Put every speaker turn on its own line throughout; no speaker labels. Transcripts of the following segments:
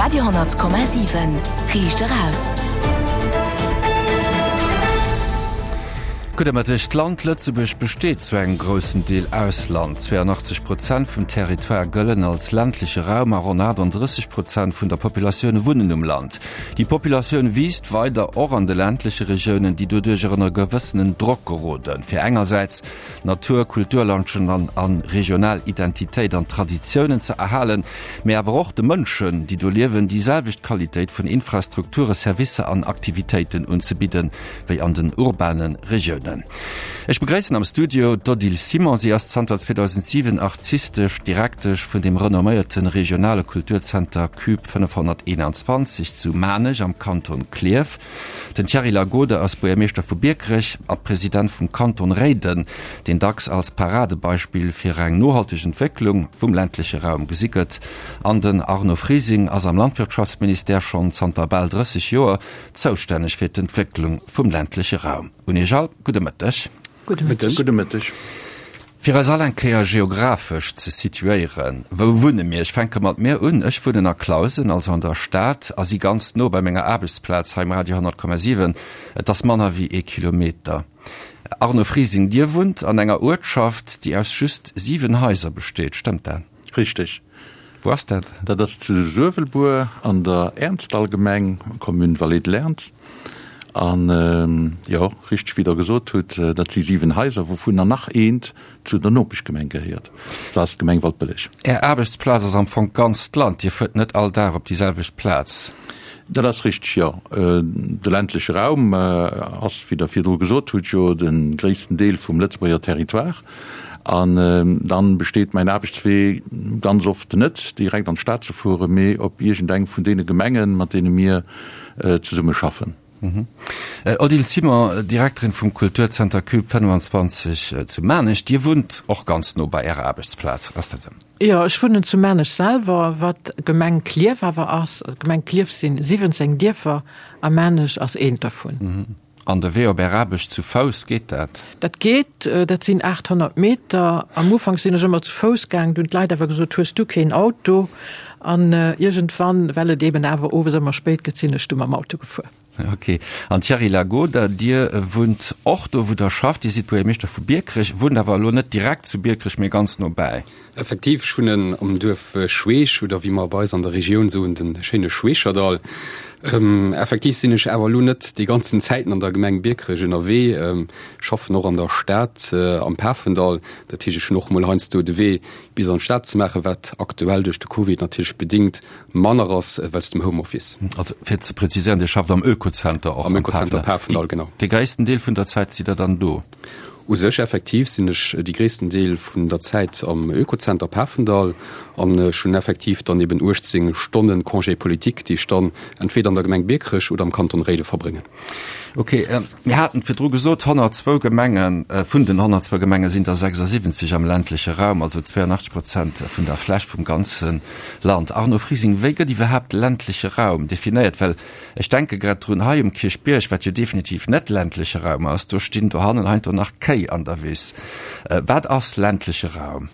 Radio,7 Riicht eraus.
Gudde Mëtteg. D'Land Lëtzebuerg besteet zu engem groussen Deel aus Land. 82 Prozent vum Territoire gëllen als ländleche Raum a ronn 38 Prozent vun der Populatioun wunnen um Land. Déi Populatioun wiisst weider och an de ländleche Regiounen, déi doduercher ënner gewëssenen Drock geroden, fir engersäits Natur, Kulturlandschen an an regional Identitéit an Traditiounen ze erhalen, mee awer och de Mënschen, déi do liewen, déi selwecht Qualitéit vun Infrastrukture, Servicer an Aktivitéiten unzebidden, wéi an den urbane Regiounen. Ech begréissen am Studio d'Odile Simon. Si ass zanter 2007 artistesch Direktesch vun dem renomméierte regionale Kulturzenter Cube 521 zu Maarnech am Kanton Klierf. Den Thierry Lagode ass Buergermeeschter vu Biekerech a President vum Kanton Réiden, deen dacks als Paradebeispill fir eng nohalteg Entwécklung vum ländleche Raum gesi gëtt. An den Arno Frising ass am Landwirtschaftsministère schonn zanter bal 30 Joer zoustänneg fir d'Entwécklung vum ländleche Raum. Un Iech all gudde Mëtteg.
Gudde Mëtteg.
Gudde Mëtteg.
Fir eis all eng Kéier geographesch ze situéieren, wou wunne mir? Ech fänke mat mir un, Ech wunnen a Clausen, also an der Stad, a si ganz no bei menger Aarbechtsplaz hei um Radio 100,7. Et ass manner wéi ee Kilometer. Arno Frising, Dir wunnt an enger Uertschaft, déi aus just 7 Haiser besteet, stëmmt dat?
Richteg.
Wou ass dat?
Dat ass zu Suewelbuer an der Ernzdallgemeng, Commune Vallée de l'Ernz. An jo, richteg wéi Der gesot hutt, dat si 7 Haiser, wouvunner nach eent zu der Nopeschgemeng gehéiert, dat ass d'Gemeng Waldbëlleg.
Är Aarbechtsplaz ass am Fong d'ganzt Land, Dir fuert net all Dag op déi selwecht Plaz?
Dat ass richteg, jo. De ländleche Raum ass, wéi Der virdru gesot hutt, jo de gréissten Deel vum Lëtzebuerger Territoire. An dann besteet mäin Aarbechtswee ganz oft net direkt an d'Stad ze fueren, mee op iergendeng vun deene Gemengen, mat deene mir zesumme schaffen.
Odile Simon, Direkterin vum Kulturzenter Cube 25 zu Maarnech, Dir wunnt och ganz no bei Ärer Aarbechtsplaz, ass dat esou?
Jo, ech wunnen zu Maarnech selwer, wat Gemeng Klierf awer ass. D'Gemeng Klierf sinn 17 Dierfer a Maarnech ass eent dervun.
An de Wee op Är Aarbecht zu Fouss, geet dat?
Dat geet, dat sinn 800 Meter. Am Ufank sinn ech ëmmer zu Fouss gaang, du hunn d'Leit awer gesot, hues du keen Auto? An iergendwann, well et eben awer owes ëmmer spéit gëtt, sinn ech du mam Auto gefuer.
Ok. An Thierry Lagoda, Dir wunnt och do, wou Der schafft. Dir sidd Buergermeeschter vu Biekerech, wunnt awer elo net direkt zu Biekerech, mee ganz nobäi.
Effektiv, ech wunnen am Duerf Schweech, oder wéi mer bei eis an der Regioun soen, de schéine Schweecherdall. Effektiv sinn ech awer elo net déi ganzen Zäiten an der Gemeng Biekerech ënnerwee, schaffen och an der Stad am Pafendall. Dat heescht, ech hunn och mol heiansdo de Wee bis an d'Stad ze maachen, wat aktuell duerch de Covid natierlech bedingt manner ass wéinst dem Homeoffice.
Also fir ze präziséieren, Dir schafft am Oekozenter och
am Oekozenter Pafendall, genau.
De gréissten Deel vun der Zäit sidd Der dann do?
U sech effektiv sinn ech déi gréissten Deel vun der Zäit am Oekozenter Pafendall an ech hunn effektiv dann eben 18 Stonnen Congé politique, déi ech dann entweder an der Gemeng Biekerech oder am Kanton Réiden verbréngen.
Ok, mir haten et virdru gesot, 102 Gemengen, vun den 102 Gemenge sinn der 76 am ländleche Raum, also 82 Prozent vun der Fläch vum ganze Land. Arno Frising, wéi gëtt iwwerhaapt ländleche Raum definéiert? Well Ech denke grad drun, hei um Kierchbierg, wat jo definitiv net ländleche Raum ass, do stinn dohannen heiansdo nach Kéi an der Wiss. Wat ass ländleche Raum?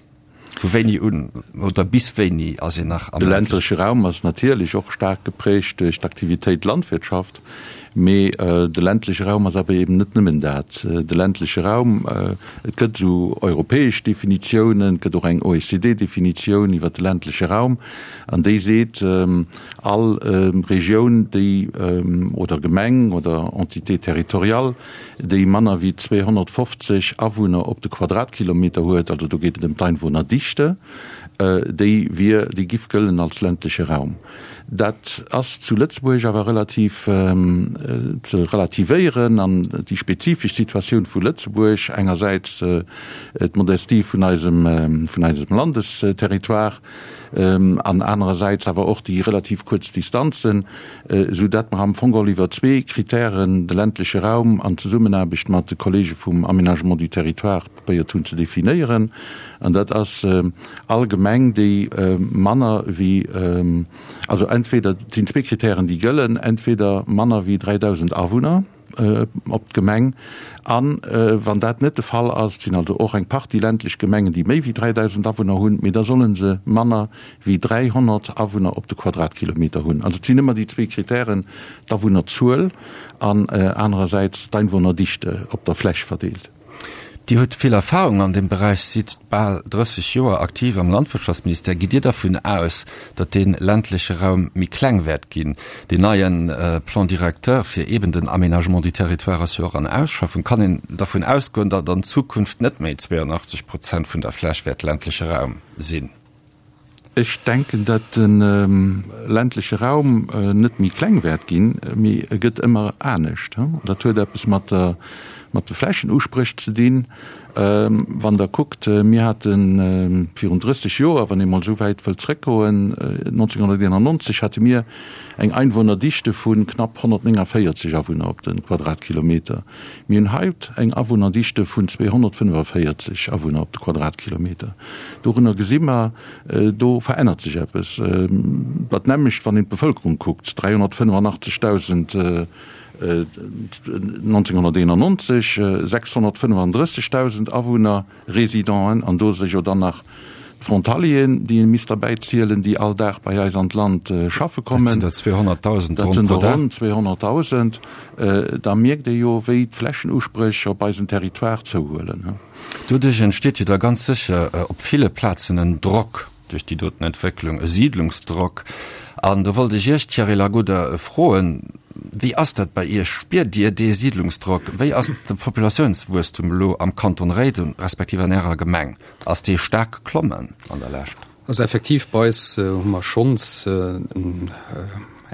Vu wéini un oder bis wéini ass een nach
am ländleche? De ländleche Raum ass natierlech och staark geprägt duerch d'Aktivitéit Landwirtschaft, mee de ländleche Raum ass awer eben net nëmmen dat. De ländleche Raum, et gëtt esou europäesch Definitiounen, et gëtt och eng OECD-Definitioun iwwer de ländleche Raum, an déi seet, All Regioun, déi, oder Gemeng oder Entité territoriale, déi manner wéi 250 Awunner op de Quadratkilometer huet, also do geet et ëm d'Einwohnerdichte, déi wier, déi giff gëllen als ländleche Raum. Dat ass zu Lëtzebuerg awer relativ ze relativéieren an déi spezifesch Situatioun vu Lëtzebuerg, engersäits d'Modestie vun eisem, vun eisem Landesterritoire, an anerersäits awer och déi relativ kuerz Distanzen, esou dat mer am Fong geholl iwwer zwee Kritären de ländleche Raum an Zesummenaarbecht mat de Kollege vum Aménagement du territoire probéiert hunn ze definéieren. An dat ass all Gemeng, déi manner wéi, also entweder, et sinn zwee Kritären, déi gëllen, entweder manner wéi 3.000 Awunner. op d'Gemeng. An wann dat net de Fall ass, et sinn also och eng Partie ländlech Gemengen, déi méi wéi 3.000 Awunner hunn, mee da solle se manner wéi 300 Awunner op de Quadratkilometer hunn. Also et sinn ëmmer déi zwee Kritären, d'Awunnerzuel an anerersäits d'Einwohnerdichte op der Fläch verdeelt.
Dir hutt vill Erfahrung an deem Beräich, sidd bal 30 Joer aktiv am Landwirtschaftsministère. Gitt Dir dervun aus, datt dee ländleche Raum méi kleng wäert ginn? Deen neie Plan directeur fir eeben den Aménagement du territoire ass jo och an Ausschaffung. Kann een dervun ausgoen, datt an Zukunft net méi 82 Prozent vun der Fläch wäert ländleche Raum sinn?
Ech denken, datt de ländleche Raum net méi kleng wäert ginn, mee e gëtt ëmmer anescht. Dat huet eppes mat der, mat de Flächenuspréch ze dinn. Wann Der kuckt, mir hate virun 30 Joer, wann ee mol esou wäit wëllt zrëckgoen, 1991 hate mir eng Einwohnerdichte vu knapp 149 Awunner op de Quadratkilometer. Mir hunn haut eng Awunnerdichte vun 245 Awunner op de Quadratkilometer. Dorunner gesi mer, do verännert sech eppes. Dat nämmlecht, wann een d'Bevëlkerung kuckt, 385.000 1991, 635.000 Awunner. Résidenten, an do si jo dann nach d'Frontalieren, déi ee misst derbäi zielen, déi all Dag bei eis an d'Land schaffe kommen.
Dat sinn der 200.000
Dat sinn der ronn 200.000. Da mierkt ee jo, wéi d'Flächenuspréch op eisem Territoire zouhuelen.
Doduerch entsteet jo da ganz sécher op ville Plazen en Drock. Duerch déi doten Entwécklung, e Siidlungsdrock. An do wollt ech Iech, Thierry Lagoda, froen, Wéi ass dat bei Iech? Spiert Dir dee Siidlungsdrock? Wéi ass de Populatiounswuesstum elo am Kanton Réiden, respektiv an Ärer Gemeng? Ass dee staark geklommen an der Lescht?
Also effektiv, bei eis hu mer schonns eng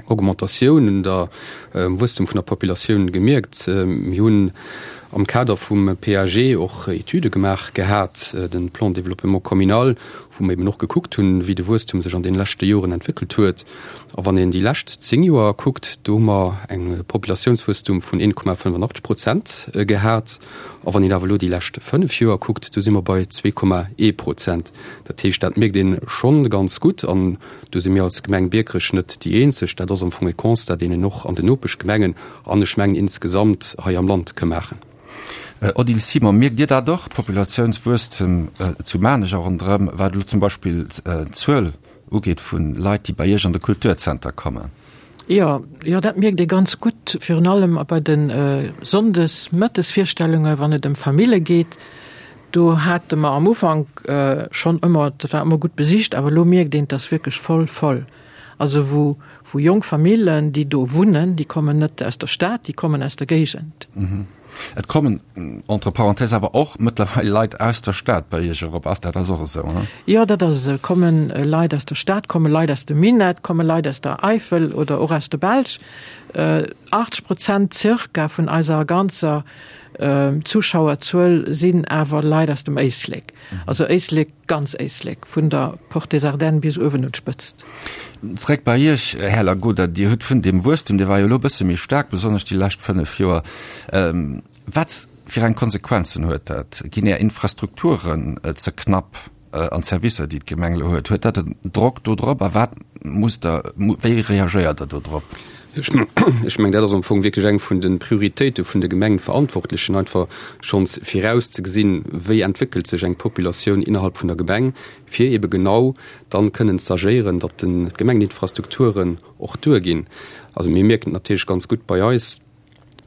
Augmentatioun un der Wuesstum vun der Populatioun gemierkt. Mir hunn am Kader vum PAG och Etüde gemaach gehat, de Plan de développement communal, wou mer eben och gekuckt hunn, wéi de Wuesstum sech an deene leschte Joren entwéckelt huet. A wann een déi lescht 10 Joer kuckt, do hu mer eng Populatiounswuesstum vun 1,85 Prozent gehat. A wann een awer elo déi lescht 5 Joer kuckt, do si mer bei 2,1 Prozent. Dat heescht, dat mierkt ee schonn ganz gutt. An do si mir als Gemeng Biekerech net déi eenzeg. Dat ass am Fong e Constat, deen een och an den Nopeschgemengen an ech mengen insgesamt hei am Land ka maachen.
Odile Simon, Mierkt Dir dat och, Populatiounswuesstem zu Maarnech a ronderëm, wat elo zum Beispill d'Zuel ugeet vu Leit, déi bei Iech an de Kulturzenter kommen?
Jo, jo, dat mierkt ee ganz gutt, virun allem bei de Sonndes-Mëttesvirstellunge wann et ëm Famille geet. Do hate mer am Ufank schonn ëmmer, dat war ëmmer gutt besicht, awer elo mierkt een, et ass wierklech voll voll. Also wou, wou jonk Famillen, déi do wunnen, déi kommen net aus der Stad, déi kommen aus der Géigend.
Et kommen, entre parenthèses, awer och mëttlerweil Leit aus der Stad bei Iech erop. Ass dat ass och esou, he?
Jo, dat ass esou. Et komme Leit aus der Stad, komme Leit aus dem Minett, komme Leit aus der Eifel oder och aus der Belsch. 80 Prozent zirka vun eiser ganzer Zuschauerzuel sinn awer Leit aus dem Éislek. Also Éislek, ganz Éislek, vun der Porte des Ardennes bis uewen un d'Spëtzt.
Zréck bei Iech, Här Lagoda. Dir hutt vun deem Wuesstem, dee war jo elo e bësse méi staark, besonnesch déi lescht 5 Joer. Wat fir eng Konsequenzen huet dat? Ginn Är Infrastrukturen ze knapp an d'Servicer, déi d'Gemeng elo huet? Huet dat en Drock do drop a wat musst Der, wéi reagéiert Der do drop?
Ech mengen, dat ass am Fong wierklech eng vun de Prioritéite vun de Gemengenverantwortlechen, einfach schonns virauszegesinn, wéi entwéckelt sech eng Populatioun innerhalb vun der Gemeng, fir ebe genau dann kënnen z'agéieren, datt d'Gemengeninfrastrukturen och duerginn. Also mir mierken et natierlech ganz gutt bei eis,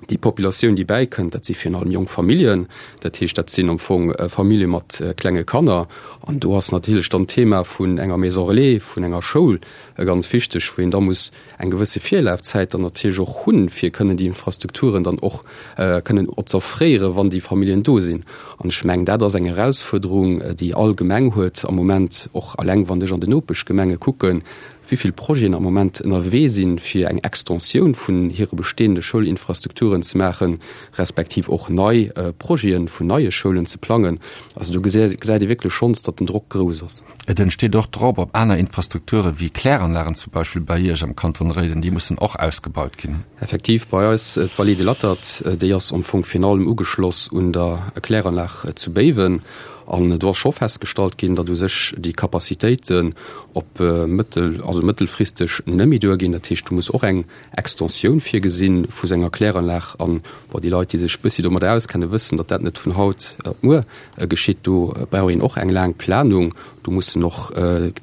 Déi Populatioun, déi bäikënnt, dat si virun allem jonk Familljen. Dat heescht, dat sinn am Fong Famillje mat klenge Kanner. An do ass natierlech dann d'Thema vun enger Maison relais, vun enger Schoul ganz wichteg, wou een da muss eng gewësse Virlafzäit dann natierlech och hunn, fir kënnen déi Infrastrukturen dann och kënnen z'offréieren, wann déi Familljen do sinn. An ech mengen, dat ass eng Erausfuerderung, déi all Gemeng huet am Moment, och alleng wann ech an den Nopeschgemenge kucken, wéi vill Projeten am Moment ënnerwee sinn, fir eng Extensioun vun hire bestehende Schoulinfrastrukturen ze maachen, respektiv och nei Projete vun neie Schoulen ze plangen. Also do gesäit ee wierklech schonns, datt den Drock grouss ass.
Et entsteet och Drock op aner Infrastrukture wéi Kläranlagen zum Beispill bei Iech am Kanton Réiden. Déi mussen och ausgebaut ginn.
Effektiv, bei eis d'Vallée de l'Attert, déi ass am Fong virun allem ugeschloss un der Kläranlag zu Béiwen. An do ass scho festgestallt ginn, datt u sech déi Capacitéiten op mëttel-, also mëttelfristeg net méi duerginn. Dat heescht, do muss och eng Extensioun virgesinn vu senger Kläranlag. An, bon, déi Leit, déi sech e bëssi domadder auskennen, wëssen, datt dat net vun haut op muer geschitt. Do brauch een och eng laang Planung. Do mussen och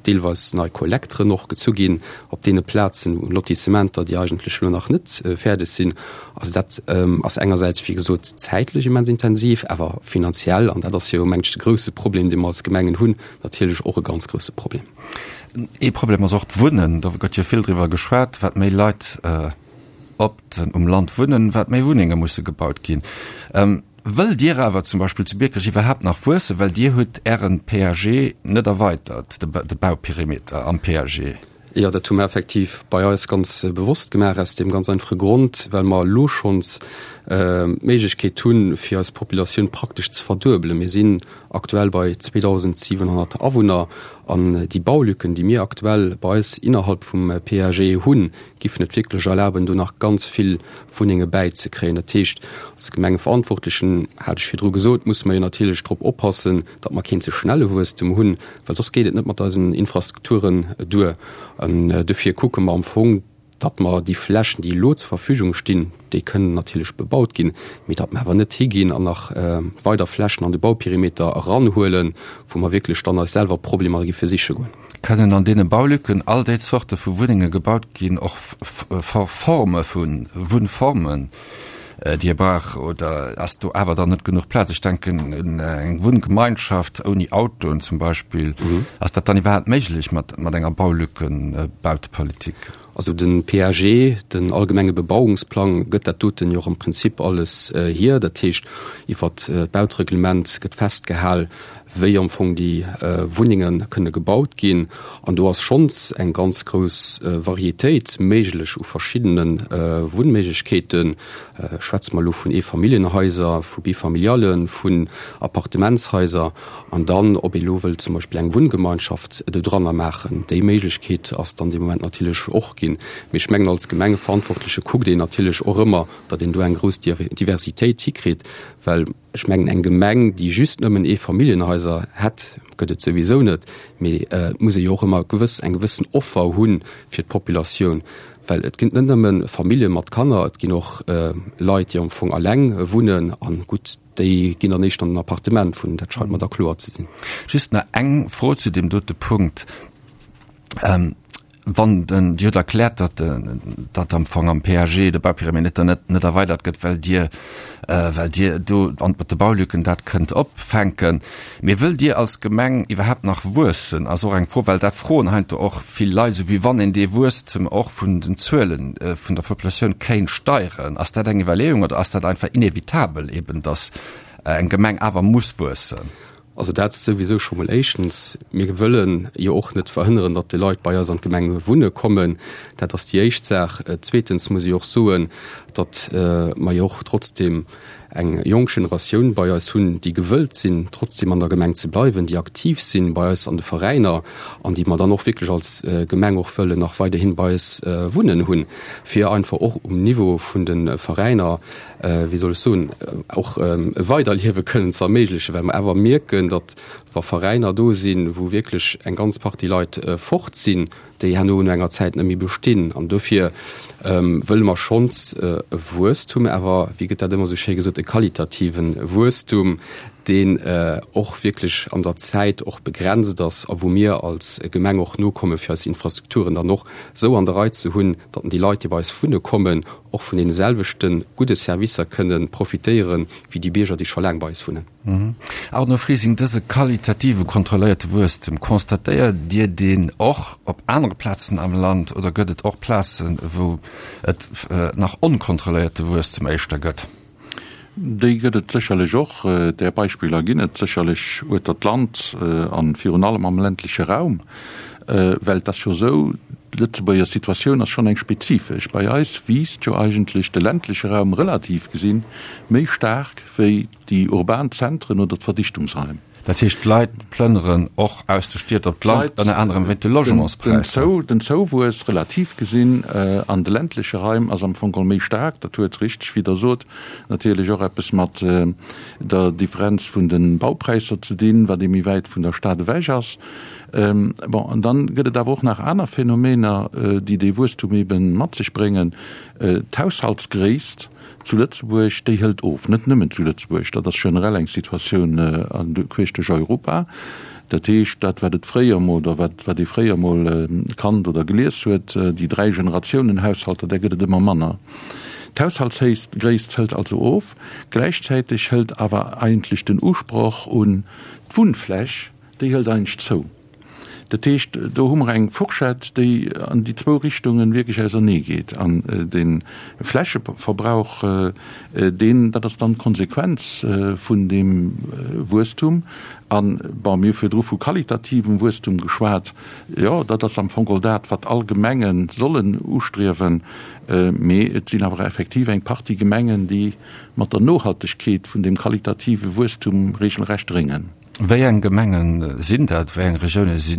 deelweis nei Kollekteren och gezu ginn op deene Plazen, Lotissementer, déi eigentlech elo nach net fäerdeg sinn. Also dat ass engersäits, wéi gesot, zäitlech immens intensiv, awer finanziell, an dat ass jo, mengen ech, de grouse Problem, dee mer als Gemengen hunn, natierlech och e ganz grouse Problem.
Ee Problem ass och d'Wunnen. Do gëtt jo vill driwwer geschwat, wat méi Leit op um Land wunnen, wat méi Wunnenge musse gebaut ginn. Wëllt Dir awer zum Beispill zu Biekerech iwwerhaapt nach wuessen? Well Dir hutt Ären PAG net erweitert, de Bauperimeter am PAG.
Jo, dat hu mer effektiv bei eis ganz bewosst gemaach, aus deem ganz einfache Grond, well mer elo schonns d'Méiglechkeet hunn, fir eis Populatioun praktesch ze verduebelen. Mir sinn aktuell bei 2.700 Awunner an déi Baulücken, déi mir aktuell bei eis innerhalb vum PAG hunn, giffen et wierklech erlaben, do nach ganz vill Wunnenge bäizekréien. Dat heescht, als Gemengeverantwortlechen, hat ech virdru gesot, musse mer jo natierlech drop oppassen, datt mer keen ze schnelle Wuesstem hunn, well soss geet et net mat eisen Infrastrukturen duer. An dofir kucke mer am Fong, datt mer déi Flächen, déi elo zur Verfügung stinn, déi kënnen natierlech bebaut ginn, mee datt mer awer net higinn an nach weider Flächen an de Bauperimeter eranhuelen, wou mer wierklech dann eis selwer Problemer giffe siche goen.
Kënnen an deene Baulücken all déi Zorte vu Wunnenge gebaut ginn, och Forme vu Wunnformen, déi ee brauch, oder ass do awer dann net genuch Plaz? Ech denken un eng Wunngemeinschaft ouni Autoen zum Beispill. Ass dat dann iwwerhaapt méiglech mat enger Baulückenbautepolitik?
Also de PAG, den allgemenge Bebauungsplang, gëtt dat doten jo och am Prinzip alles hier. Dat heescht, iwwert d'Bautereglement gëtt festgehal, wéi am Fong déi Wunnenge kënne gebaut ginn. An do ass schonns eng ganz grouss Varietéit méiglech u verschiddene Wunnméiglechkeeten. Schwätze mer elo vun Eefamilljenhaiser, vu Bifamiliallen, vun Appartementshaiser. An dann, ob ee lo wëllt zum Beispill eng Wunngemeinschaft dodranner maachen, déi Méiglechkeet ass dann dee Moment natierlech och ginn. Mee ech mengen, als Gemengeverantwortleche kuckt een natierlech och ëmmer, datt een do eng grouss Diversitéit hikritt, well ech mengen, eng Gemeng, déi just nëmmen Eefamilljenhaiser hätt, gëtt et souwisou net, mee et muss ee jo och ëmmer gewëss, eng gewëssen Offer hu fir d'Populatioun, well et ginn net nëmme Famillje mat Kanner, et ginn och Leit, déi am Fong alleng wunnen an gutt, déi ginn dann éischter an den Appartement wunnen, dat scheit mer da kloer ze sinn.
Just nach eng Fro zu deem dote Punkt. Wann den, Dir hutt erkläert, datt, datt am Fong am PAG de Bauperimeter net, net erweidert gëtt, well Dir, well Dir do an mat de Baulücken dat kënnt opfänken. Mee wëllt Dir als Gemeng iwwerhaapt nach wuessen, ass och eng Fro, well dat froen heiansdo och vill Leit, esou wéi wann een dee Wuesstem och vun den Zuele vun der Populatioun kéint steieren. Ass dat eng Iwwerleeung oder ass dat einfach inevitabel eben, datt eng Gemeng awer muss wuessen?
Also dat souwisou scho mol éischtens. Mir wëlle jo och net verhënneren, datt déi Leit bei eis an d'Gemeng wunne kommen. Dat ass déi éischt Saach. Zweetens muss ech och soen, datt mer jo och trotzdem eng jonk Generatioun bei eis hunn, déi gewëllt sinn, trotzdem an der Gemeng ze bleiwen, déi aktiv sinn bei eis an de Veräiner an déi mer dann och wierklech als Gemeng och wëllen nach weiderhin bei eis wunnen hunn, fir einfach och um Niveau vun de Veräiner wéi soll ech soen, och e Weiderliewe kënnen ze erméiglechen, well mer awer mierken, datt wa Veräiner do sinn, wou wierklech eng ganz Partie Leit fort sinn, déi herno no enger Zäit net méi bestinn. An dofir wëlle mer schonns e Wuesstum, awer, wéi gëtt dat ëmmer esou schéi gesot, e qualitative Wuesstum, deen och wierklech an der Zäit och begrenzt ass a wou mir als Gemeng och nokomme fir eis Infrastrukturen dann och esou an der Rei ze hunn, datt déi Leit, déi bei eis wunne kommen, och vun deene selwechte gudde Servicer kënne profitéiere wéi déi Bierger, déi scho laang bei eis wunnen.
Arno Frising, Dëse qualitative kontrolléierte Wuesstem, constatéiert Dir deen och op anere Plazen am Land oder gëtt et och Plazen, wou et nach onkontrolléierte Wuesstem éischter gëtt?
Déi gëtt et sécherlech och. Där Beispiller ginn et sécherlech ueter d'Land a virun allem am ländleche Raum. Well et ass jo esou, d'Lëtzebuerger Situatioun ass schonn eng spezifesch. Bei eis wiisst jo eigentlech de ländleche Raum relativ gesinn méi staark wéi déi urban Zentren oder d'Verdichtungsraim.
Dat heescht, d'Leit plënneren och aus de Stied op d'Land, ënner anerem wéint de Logementspräisser.
Den Zouwuess, relativ gesinn, an de ländleche Raim ass am Fong geholl méi staark. Dat huet, richteg wéi Der sot, natierlech och eppes mat der Differenz vun de Baupräisser ze dinn, wat ee méi wäit vun der Stad ewech ass. Bon, an dann gëtt et awer och nach aner Phänomener, déi dee Wuesstum ebe mat sech bréngen. D'Haushaltsgréisst zu Lëtzebuerg, déi hëlt of. Net nëmmen zu Lëtzebuerg, dat ass generell eng Situatioun queesch duerch Europa. Dat heescht, dat wat et fréier emol, oder wat wat ee fréier emol kannt oder gelies huet, déi Dräi-Generatiounen-Haushalter, där gëtt et ëmmer manner. D'Haushaltsgréisst hëlt also of. Gläichzäiteg hëlt awer eigentlech den Usproch un d'Wunnfläch, déi hëlt eigentlech zou. Dat heescht, do hu mer eng Fourchette, déi an déi zwou Richtungen wierklech ausernee geet. An de Flächeverbrauch, deen, dat ass dann d'Konsequenz vun deem Wuesstum. An, bon, mir hu virdru vu qualitativem Wuesstum geschwat. Jo, dat ass am Fong geholl dat, wat all Gemenge sollen ustriewen. Mee et sinn awer effektiv eng Partie Gemengen, déi mat der Nohaltegkeet vun deem qualitative Wuesstum regelrecht réngen.
Wéi eng Gemenge sinn dat? Wéi eng Regioune si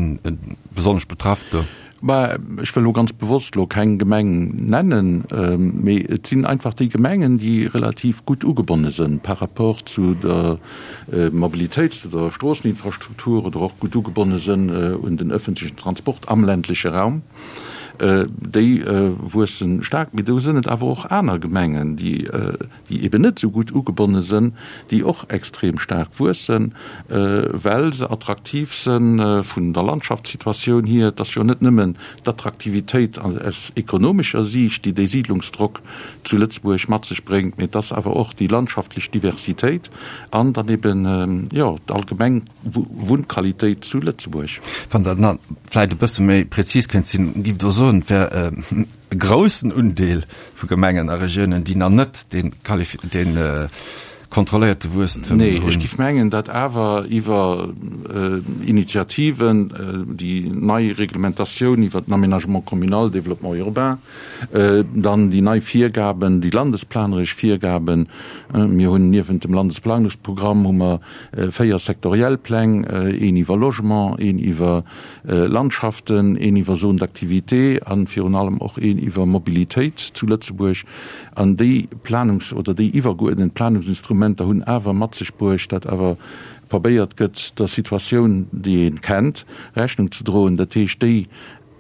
besonnesch betraff do?
Bah, ech wëll elo ganz bewosst elo keng Gemeng nennen, mee et sinn einfach déi Gemengen, déi relativ gutt ugebonne sënn par rapport zu der Mobilitéit, zu der Stroosseninfrastruktur oder och gutt ugebonne sënn un den öffentlichen Transport am ländleche Raum. Déi wuessen staark. Mee do sënn et awer och aner Gemengen, déi déi eben net esou gutt ugebonne sënn, déi och extrem staark wuessen, well se attraktiv sënn vun der Landschaftssituatioun hier. Et ass jo net nëmmen d'Attraktivitéit aus ekonomescher Siicht, déi dee Siidlungsdrock zu Lëtzebuerg mat sech bréngt, mee et ass awer och déi landschaftlech Diversitéit an dann eben, jo, d'allgemeng Wunnqualitéit zu Lëtzebuerg.
Wann Der nach vläicht e bësse méi prezis kënnt sinn, giff Der soen, et wär e groussen Undeel vu Gemengen a Regiounen, déi nach net dee kontrolléierte Wuesstem hunn.
Nee, ech géif mengen, datt awer iwwer Initiativen, déi nei Reglementatioun iwwer den Aménagement communal, Développement urbain, dann déi nei Virgaben, déi landesplaneresch Virgaben, mir hunn niewent dem Landesplanungsprogramm hu mer 4 sektoriell Pläng, een iwwer Logement, een iwwer Landschaften, een iwwer Zones d'activité a virun allem och een iwwer Mobilitéit zu Lëtzebuerg. An déi Planungs oder déi iwwergeuerdent Planungsinstrumenter hunn awer mat sech bruecht, datt awer probéiert gëtt, der Situatioun, déi ee kennt, Rechnung ze droen. Dat heescht, déi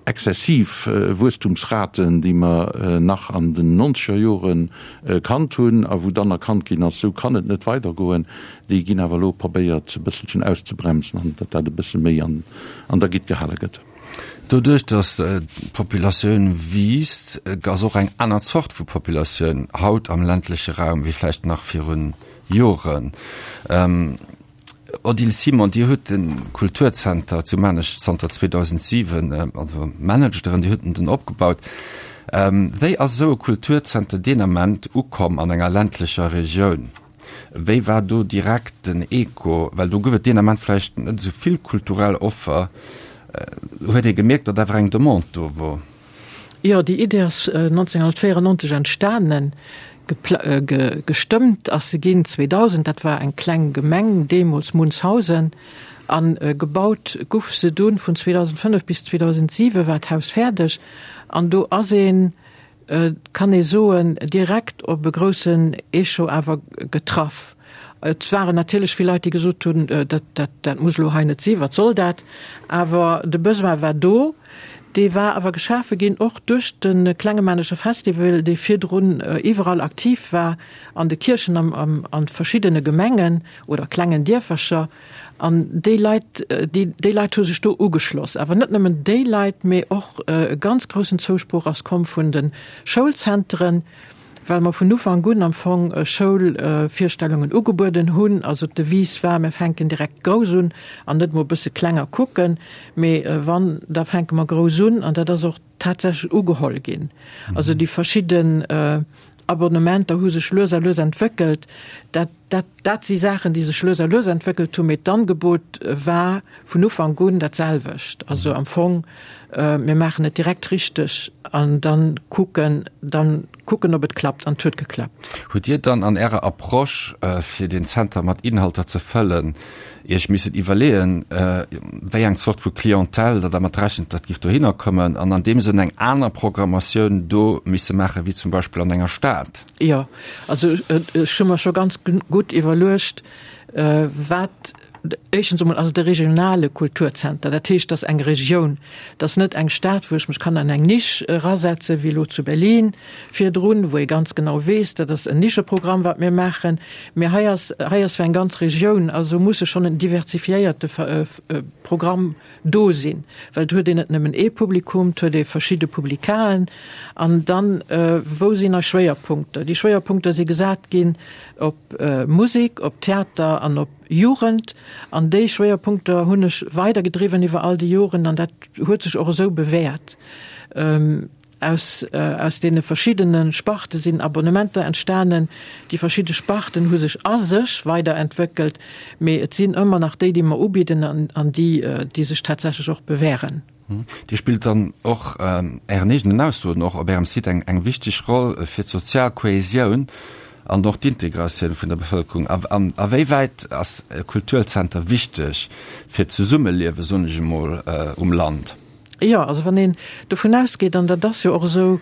exzessiv Wuesstumsraten, déi mer nach an den nonzeger Jore kannt hunn a wou dann erkannt ginn ass, esou kann et net weidergoen, Déi ginn awer elo probéiert e bësselchen auszebremsen an datt dat e bësse méi an der Gitt gehale gëtt.
Doduerch, datt d'Populatioun wiisst, ass och eng aner Zort vu Populatioun haut am ländleche Raum wéi vläicht nach virun Joren. Odile Simon, Dir hutt de Kulturzenter zu Maarnech zanter 2007, also managt Der en, Dir hutt en den opgebaut. Wéi ass esou e Kulturzenter deen Ament ukomm an enger ländlecher Regioun? Wéi war do direkt den Echo? Well do gouf et deen Ament vläicht net esou vill kulturell Offer. Huet ee gemierkt, datt awer eng Demande do wor?
Jo, déi Idee ass 1994 entstanen. Gestëmmt ass se ginn 2000. Dat war eng kleng Gemeng deemools, Munzhausen. A gebaut guff se dunn vun 2005 bis 2007 war d'Haus fäerdeg. An do ass een Et kann ee soen, direkt op e groussen Echo awer getraff. Et waren natierlech vill Leit, déi gesot hunn, dat, dat, dat muss elo hei net sinn, wat soll dat? Awer de Besoin war do. Dee war awer geschafe ginn och duerch de Klengemanescher Festival, dee virdrun iwwerall aktiv war, an de Kierchen, am, am, a verschiddene Gemengen oder klengen Dierfercher. An déi Leit, déi, déi Leit hu sech do ugeschloss. Awer net nëmmen déi Leit, mee och e ganz groussen Zousproch ass komm vun de Schoulzentren, well mer vun Ufank un am Fong Schoulvirstellungen ugebueden hunn. Also d'Devise war, mir fänken direkt grouss un an net mol e bësse kleng a kucken, mee wann, da fänke mer grouss un. An dat ass och tatsächlech ugeholl ginn. Also déi verschidden Abonnementer hu sech lues a lues entwéckelt. Dat. Dat, dat si Saachen, déi sech lues a lues entwéckelt hunn, mee d'Angebot war vun Ufank un dat selwecht. Also am Fong, mir maachen et direkt richteg an dann kucken, dann kucken, ob et klappt. An et huet geklappt.
Hutt Dir dann an Ärer Approche, fir deen Zenter mat Inhalter ze fëllen, Iech missen iwwerleeën, wéi eng Zort vu Clientèle Der dermat rechent, datt giff dohinner kommen an an deem Sënn eng aner Programmatioun do misse maachen, wéi zum Beispill an enger Stad?
Jo, also ech hu mer scho ganz gutt iwwerluecht, wat, éischtens emol ass et e regionale Kulturzenter, dat heescht, et ass eng Regioun, et ass net eng Stad, wou ech mech kann an eng Nisch erasetzen, wéi elo zu Berlin virdrun, wou ee ganz genau weess, dat ass en Nischeprogramm, wat mir maachen, mee hei ass, hei ass fir eng ganz Regioun, also muss e schonn en diversifiéierte Programm do sinn, well et huet een net nëmmen ee Publikum, et huet ee verschidde Publikaen. An dann, wou sinn eis Schwéierpunkter? Déi Schwéierpunkter si gesat ginn op Musek, op Theater an op Jugend. An déi Schwéierpunkter hunn ech weidergedriwwen iwwer all déi Joren an dat huet sech och esou bewäert. Aus aus deene verschiddene Sparte sinn Abonnementer entstanen. Déi verschidde Sparten hu sech a sech weiderentwéckelt, mee et sinn ëmmer nach déi, déi mer ubidden an an déi, déi sech tatsächlech och bewähren.
Dir spillt dann och, Ären eegenen Aussoen och op Ärem Site, eng eng wichteg Roll fir d'sozial Kohäsioun an och d'Integratioun vun der Bevëlkerung. A an a wéi wäit ass e Kulturzenter wichteg fir d'Zesummeliewe, soen ech emol, um Land?
Jo, also wann een dovun ausgeet, an dat ass jo och esou,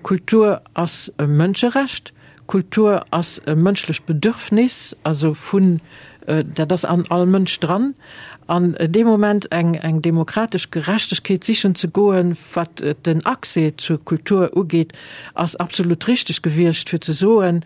Kultur ass e Mënscherecht, Kultur ass e mënschlecht Bedürfnis, also vun, dat ass an all Mënsch dran, an dee Moment eng, eng demokratesch Gerechtegkeet sichen ze goen, wat den Accès zur Kultur ugeet, ass absolut richteg gewiescht, fir ze soen,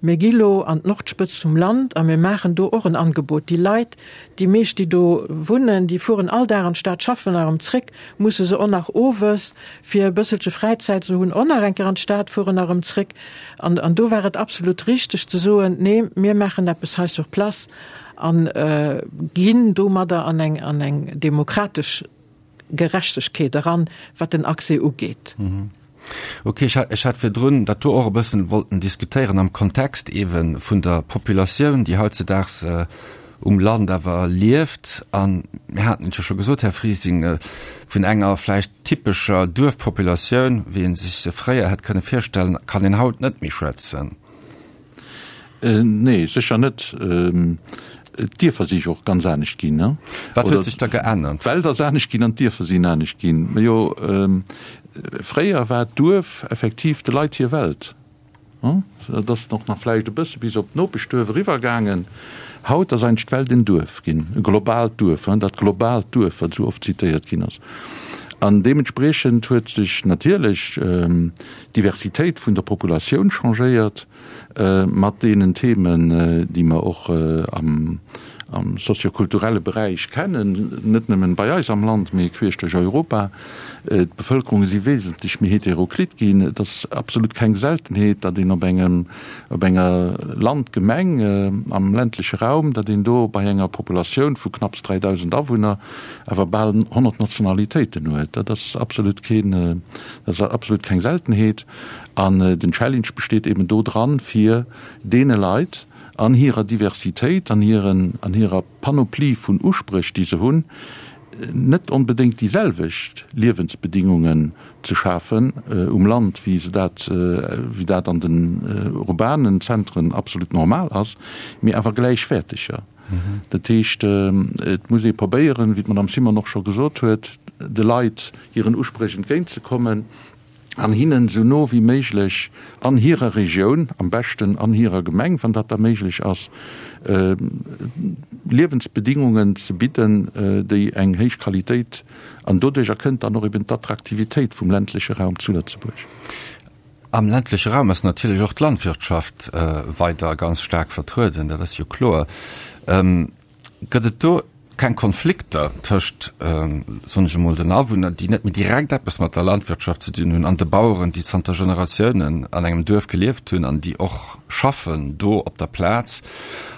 Mir gi lo an d'Nordspëtzt vum Land a mir maachen do och en Angebot. Déi Leit, déi meescht, déi do wunnen, déi fueren all Dag an d'Stad schaffen a erëm zréck, musse se och nach owes, fir e bësselche Fräizäit ze hunn, och nach eng Kéier an d'Stad fueren a erëm zréck. An, an do war et absolut richteg ze soen, Nee, mir maachen eppes hei sur place a ginn domadder an eng, an eng demokratesch Gerechtegkeet eran, wat den Accès ugeet.
Ok, ech hat, ech hat virdrun dat do och e bëssen wollten diskutéieren am Kontext eebe vun der Populatioun, déi hautzedaags um Land awer lieft. A mir haten et jo scho gesot, Här Frising, vun enger vläicht typescher Duerfpopulatioun, wéi ee sech se fréier hätt kënne virstellen, kann een haut net méi schwätzen.
Nee, sécher net. D'Dierfer si jo och ganz anescht ginn.
Wat huet sech da geännert?
D'Welt ass anescht ginn an d'Dierfer sinn anescht ginn. Majo, fréier war d'Duerf effektiv de Leit hir Welt. Et ass och nach vläicht e bësse bis op d'Nopeschduerf eriwwer gaangen. Haut ass eigentlech d'Welt en Duerf ginn, e globaalt Duerf, dat globaalt Duerf, wat esou oft zitéiert ginn ass. An deementspriechend huet sech natierlech d'Diversitéit vun der Populatioun changéiert mat deenen Themen, déi mer och am soziokulturelle Beräich kennen, net nëmmen bei eis am Land, mee queesch duerch Europa. D'Bevëlkerunge si wesentlech méi heteroklit ginn. Et ass absolut keng Seltenheet, datt een op engem, op enger Landgemeng am ländleche Raum, datt een do bei enger Populatioun vu knapps 3.000 Awunner awer bal 100 Nationalitéiten huet. Dat ass absolut keen, dat ass absolut keng Seltenheet. An den Challenge besteet eben do dran, fir deene Leit an hirer Diversitéit, an hiren, an hirer Panoplie vun Uspréch, déi se hunn, net onbedéngt déi selwecht Liewensbedingungen ze schafen um Land, wéi se dat, wéi dat an den urbanen Zentren absolut normal ass, mee awer gläichwäerteger. Dat heescht, et muss ee probéieren, wéi d'Madame Simon och scho gesot huet, de Leit hiren Uspréch entgéintzekommen an hinnen esou no wéi méiglech an hirer Regioun, am beschten an hirer Gemeng, wann dat da méiglech ass, Liewensbedingungen ze bidden, déi eng héich Qualitéit, an doduercher kënnt dann och eben d'Attraktivitéit vum ländleche Raum zu Lëtzebuerg.
Am ländleche Raum ass natierlech och d'Landwirtschaft weider ganz staark vertrueden, dat ass jo kloer. Gëtt et do keng Konflikter tëscht, soen ech emol, den Awunner, déi net méi direkt eppes mat der Landwirtschaft ze dinn hunn, an de Baueren, déi zanter Generatiounen an engem Duerf gelieft hunn an déi och schaffen do op der Plaz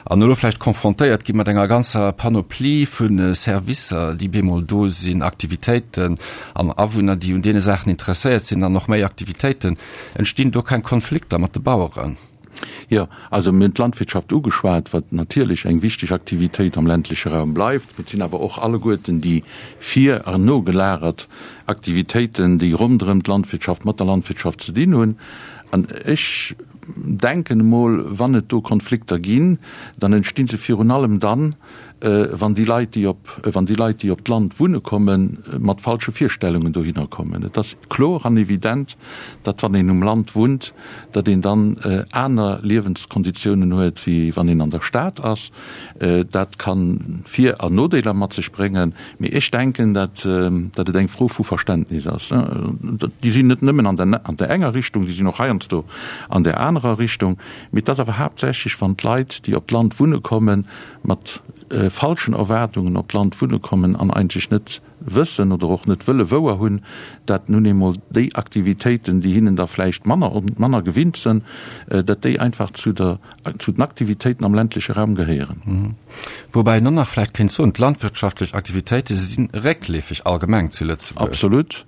an elo vläicht confrontéiert gi mat enger ganzer Panoplie vu Servicer, déi bemol do sinn, Aktivitéiten an Awunner, déi un deene Saachen interesséiert sinn an och méi Aktivitéiten. Entstinn do keng Konflikter mat de Baueren?
Jo, also mir hunn d'Landwirtschaft ugeschwat, wat natierlech eng wichteg Aktivitéit am ländleche Raum bleift. Mee et sinn awer och alleguerten déi vir an nogelagert Aktivitéiten, déi ronderëm d'Landwirtschaft, mat der Landwirtschaft ze dinn hunn. An ech denken emol, wann et do Konflikter ginn, dann entsti se virun allem dann, wann déi Leit, déi op, wann déi Leit, déi op d'Land wunne kommen, mat falsche Virstellungen dohinner kommen. Et ass kloer an evident, datt wann een um Land wunnt, datt een dann aner Liewenskonditiounen huet, wéi wann een an der Stad ass. Dat ka Vir an Nodeeler mat sech bréngen, mee ech denken, datt, datt et eng Fro vu Verständnis ass. Déi sinn net nëmmen an der, an der enger Richtung, déi sinn och heiansdo an där anerer Richtung. Mee et ass awer haaptsächlech, wann d'Leit, déi op d'Land wunne kommen, mat falschen Erwaardungen op d'Land wunne kommen an eigentlech net wëssen oder och net wëlle wouer hunn, dat nun eemol déi Aktivitéiten, déi hinnen da vläicht manner manner gewinnt sënn, dat déi einfach zu der zu den Aktivitéiten am ländleche Raum gehéieren.
Woubäi een och nach vläicht kéint soen, d'landwirtschaftlech Aktivitéite si réckleefeg allgemeng zu Lëtzebuerg.
Absolut.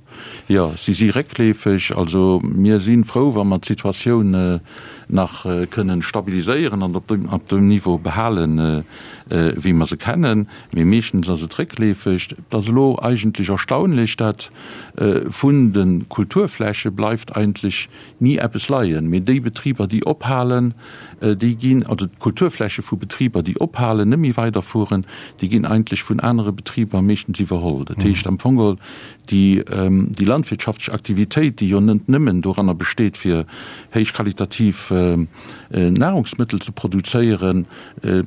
Jo, si si réckleefeg. Also mir si frou, wa mer d'Situatioun nach kënnen stabiliséieren an op dem Niveau behalen, wéi mer se kennen. Mee meeschtens ass et réckleefeg. Et ass elo eigentlech erstaunlech, dat vun de Kulturfläche bleift eigentlech ni eppes leien. Mee déi Betriber, déi ophalen, déi ginn, also d'Kulturfläche vu Betriber, déi ophalen, net méi weiderfueren, déi ginn eigentlech vun anere Betriber meeschtens iwwerholl. Dat heescht am Fong geholl, Déi landwirtschaftlech Aktivitéit, déi jo net nëmmen doranner besteet, fir héichqualitativ Nahrungsmëttel ze produzéieren,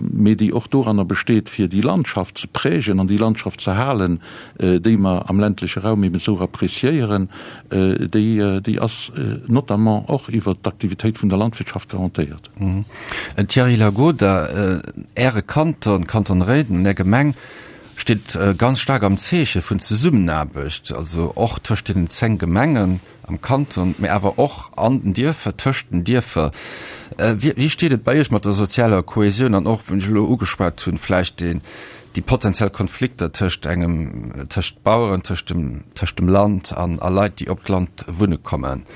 mee déi och doranner besteet, fir déi Landschaft ze prägen an déi Landschaft ze halen, déi mer am ländleche Raum eben esou appréciéieren, déi, déi ass notamment och iwwert d'Aktivitéit vun der Landwirtschaft garantéiert.
Thierry Lagoda, Äre Kanton, Kanton Réiden, Är Gemeng, steet ganz staark am Zeeche vun Zesummenaarbecht, also och tëscht deenen 10 Gemengen am Kanton, mä awer och an den Dierfer, tëscht den Dierfer. Wéi steet et bei Iech mat der sozialer Kohesioun an och, wou ech elo ugeschwat hunn, vläicht deen, déi potenziell Konflikter tëscht engem, tëscht Baueren, tëscht dem, tëscht dem Land an a Leit, déi op d'Land wunne kommen?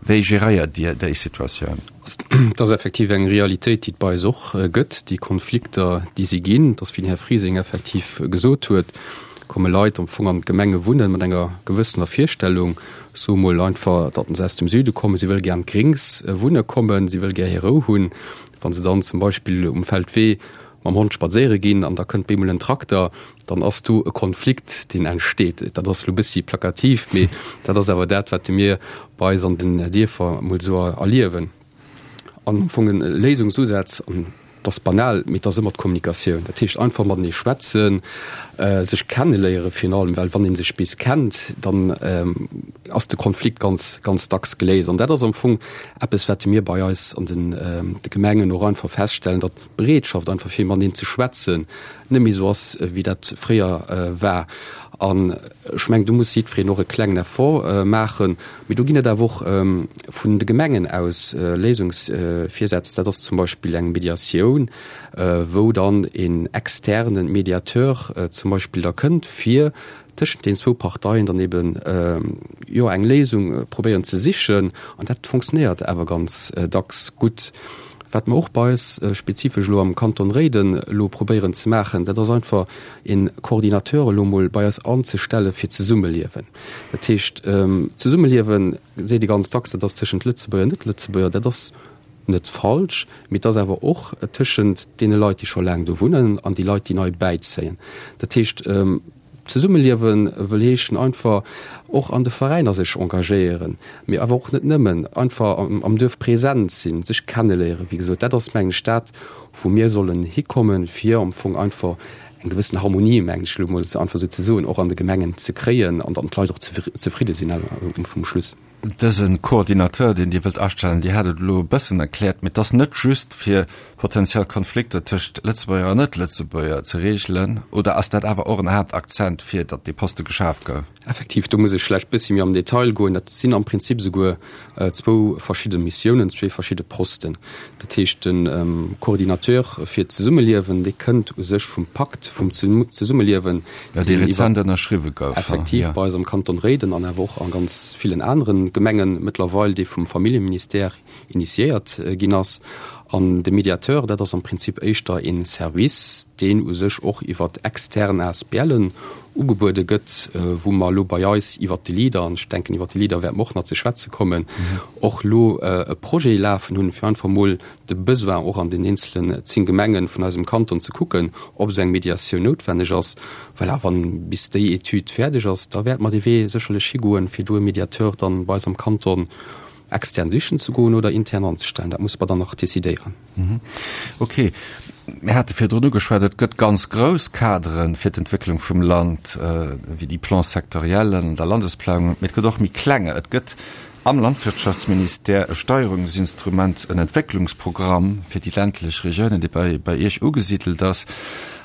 Wéi geréiert Dir déi Situatioun?
Et ass effektiv eng Realitéit, déi et bei eis och gëtt, déi Konflikter, déi si ginn. Et ass, wéi den Här Frising effektiv gesot huet, komme Leit am Fong an d'Gemenge wunnen mat enger gewëssener Virstellung, soe mol einfach, datt se aus dem Süde kommen, si wëlle gär an d'Gréngs wunne kommen, si wëlle gär hir Rou hunn. Wa se dann zum Beispill um Feldwee mam Hond spadséiere ginn an da kënnt bemol en Trakter, dann ass do e Konflikt, deen entsteet. Dat ass elo e bëssi plakativ, mee dat ass awer dat, wat mir bei eis an den Dierfer emol esou erliewen. An am Fong e Léisungsusaz, an dat ass banal, mee et ass ëmmer d'Kommunikatioun. Dat heescht einfach matenee schwätzen, sech kenneléiere virun allem, well wann ee sech bis kennt, dann ass de Konflikt ganz, ganz dacks geléist. An dat ass am Fong eppes, wat mir bei eis an de Gemengen och einfach feststellen, datt d'Bereetschaft einfach fir mateneen ze schwätzen net méi esou ass wéi dat fréier war. An ech mengen, do muss jiddwereen och e klengen Effort maachen. Mee do ginn et awer och vun de Gemengen aus Léisungsvirsätz. Dat ass zum Beispill eng Mediatioun, wou dann een externe Mediateur zum Beispill da kënnt, fir tëschent den zwou Parteien dann eben jo eng Léisung probéieren ze sichen an dat fonctionnéiert awer ganz dacks gutt. Wat mer och bei eis spezifesch elo am Kanton Réiden elo probéieren ze maachen, dat ass einfach een Coordinateur elo mol bei eis anzestelle fir d'Zesummeliewen. Dat heescht, Zesummeliewen seet ee ganz dacks, dat ass tëschent Lëtzebuerger an Net-Lëtzebuerger, dat ass net falsch, mee et ass awer och tëschent deene Leit, déi scho laang do wunnen an déi Leit, déi nei bäizéien. Dat heescht, Zesummeliewe wëll heeschen einfach och an de Veräiner sech engagéieren, mee awer och net nëmmen, einfach am Duerf present sinn, sech kenneléieren. Wéi gesot, dat ass, mengen ech, dat, wou mir sollen hikommen, fir am Fong einfach eng gewëssen Harmonie, mengen ech elo emol einfach esou ze soen, och an de Gemengen ze kréien an dann d'Leit och zefridde sinn um Schluss.
Dëse Coordinateur, deen Dir wëllt astellen, Dir hat et elo e bëssen erkläert, mee et ass net just fir potenziell Konflikter tëscht Lëtzebuerger an Net-Lëtzebuerger ze reegelen, oder ass dat awer och en Haaptakzent, fir datt dee Poste geschaf gouf?
Effektiv, do muss ech vläicht e bëssi méi am Detail goen. Dat sinn am Prinzip esouguer zwou verschidde Missiounen, zwee verschidde Posten. Dat heescht, de Coordinateur fir d'Zesummeliewen, dee kënnt u sech vum Pakt vum Zesummeliewen,
dee rezent ënnerschriwwe gouf.
Effektiv, bei eis am Kanton Réiden an awer och a ganz villen anere. d'Gemengen mëttlerweil, dee vum Familljeministère initiéiert ginn ass. An de Mediateur, dat ass am Prinzip éischter ee Service, deen u sech och iwwer extern ASBLen ugebuede gëtt, wou mer elo bei eis iwwert de Leader, an ech denken, iwwert de Leader wäerte mer och nach ze schwätze kommen, och elo e Projet lafen hunn, fir einfach emol de Besoin och an den eenzelen 10 Gemenge vun eisem Kanton ze kucken, ob esou eng Mediatioun noutwenneg ass. Voilà, wann bis déi Etüd fäerdeg ass, da wäerte mer dee Wee sécherlech higoen, fir do e Mediateur dann bei eis am Kanton extern sichen ze goen oder intern anzestellen. Dat musse mer dann nach decidéieren.
Okay. Mir hate virdrun ugeschwat, et gëtt ganz grouss Kadere fir d'Entwécklung vum Land, wéi déi Plans sectoriellen an der Landesplanung, mee et gëtt och méi klenge. Et gëtt am Landwirtschaftsministère e Steierungsinstrument, en Entwécklungsprogramm fir déi ländlech Regiounen, dee bei, bei Iech ugesidelt ass.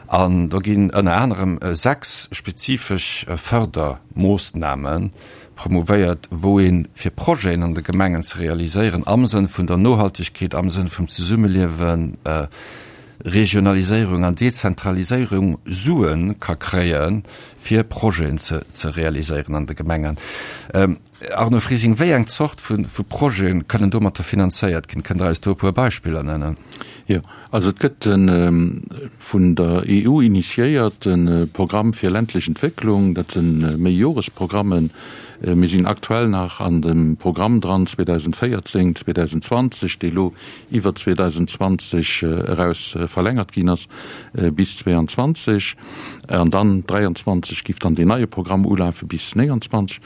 An do ginn ënner anerem 6 spezifesch Fördermoossname promouvéiert, wou ee fir Projeten an de Gemengen ze realiséieren am Sënn vun der Nohaltegkeet, am Sënn vum Zesummeliewen, Regionaliséierung an Dezentraliséierung Sue ka kréie fir Projeten ze realiséieren an de Gemengen. Arno Frising, wéi eng Zort vu Projete kënnen domatter finanzéiert ginn? Kënnt Der eis do e puer Beispiller nennen?
Jo, also et gëtt e vun der EU initiéierte Programm fir ländlech Entwécklung. Dat si Méijoresprogrammen. Mir sinn aktuell nach an dem Programm dran 2014, 2020, dee lo iwwer 2020 eraus verlängert ginn ass bis 2022. An dann 2023 giff dann deen neie Programm ulafe bis 2029.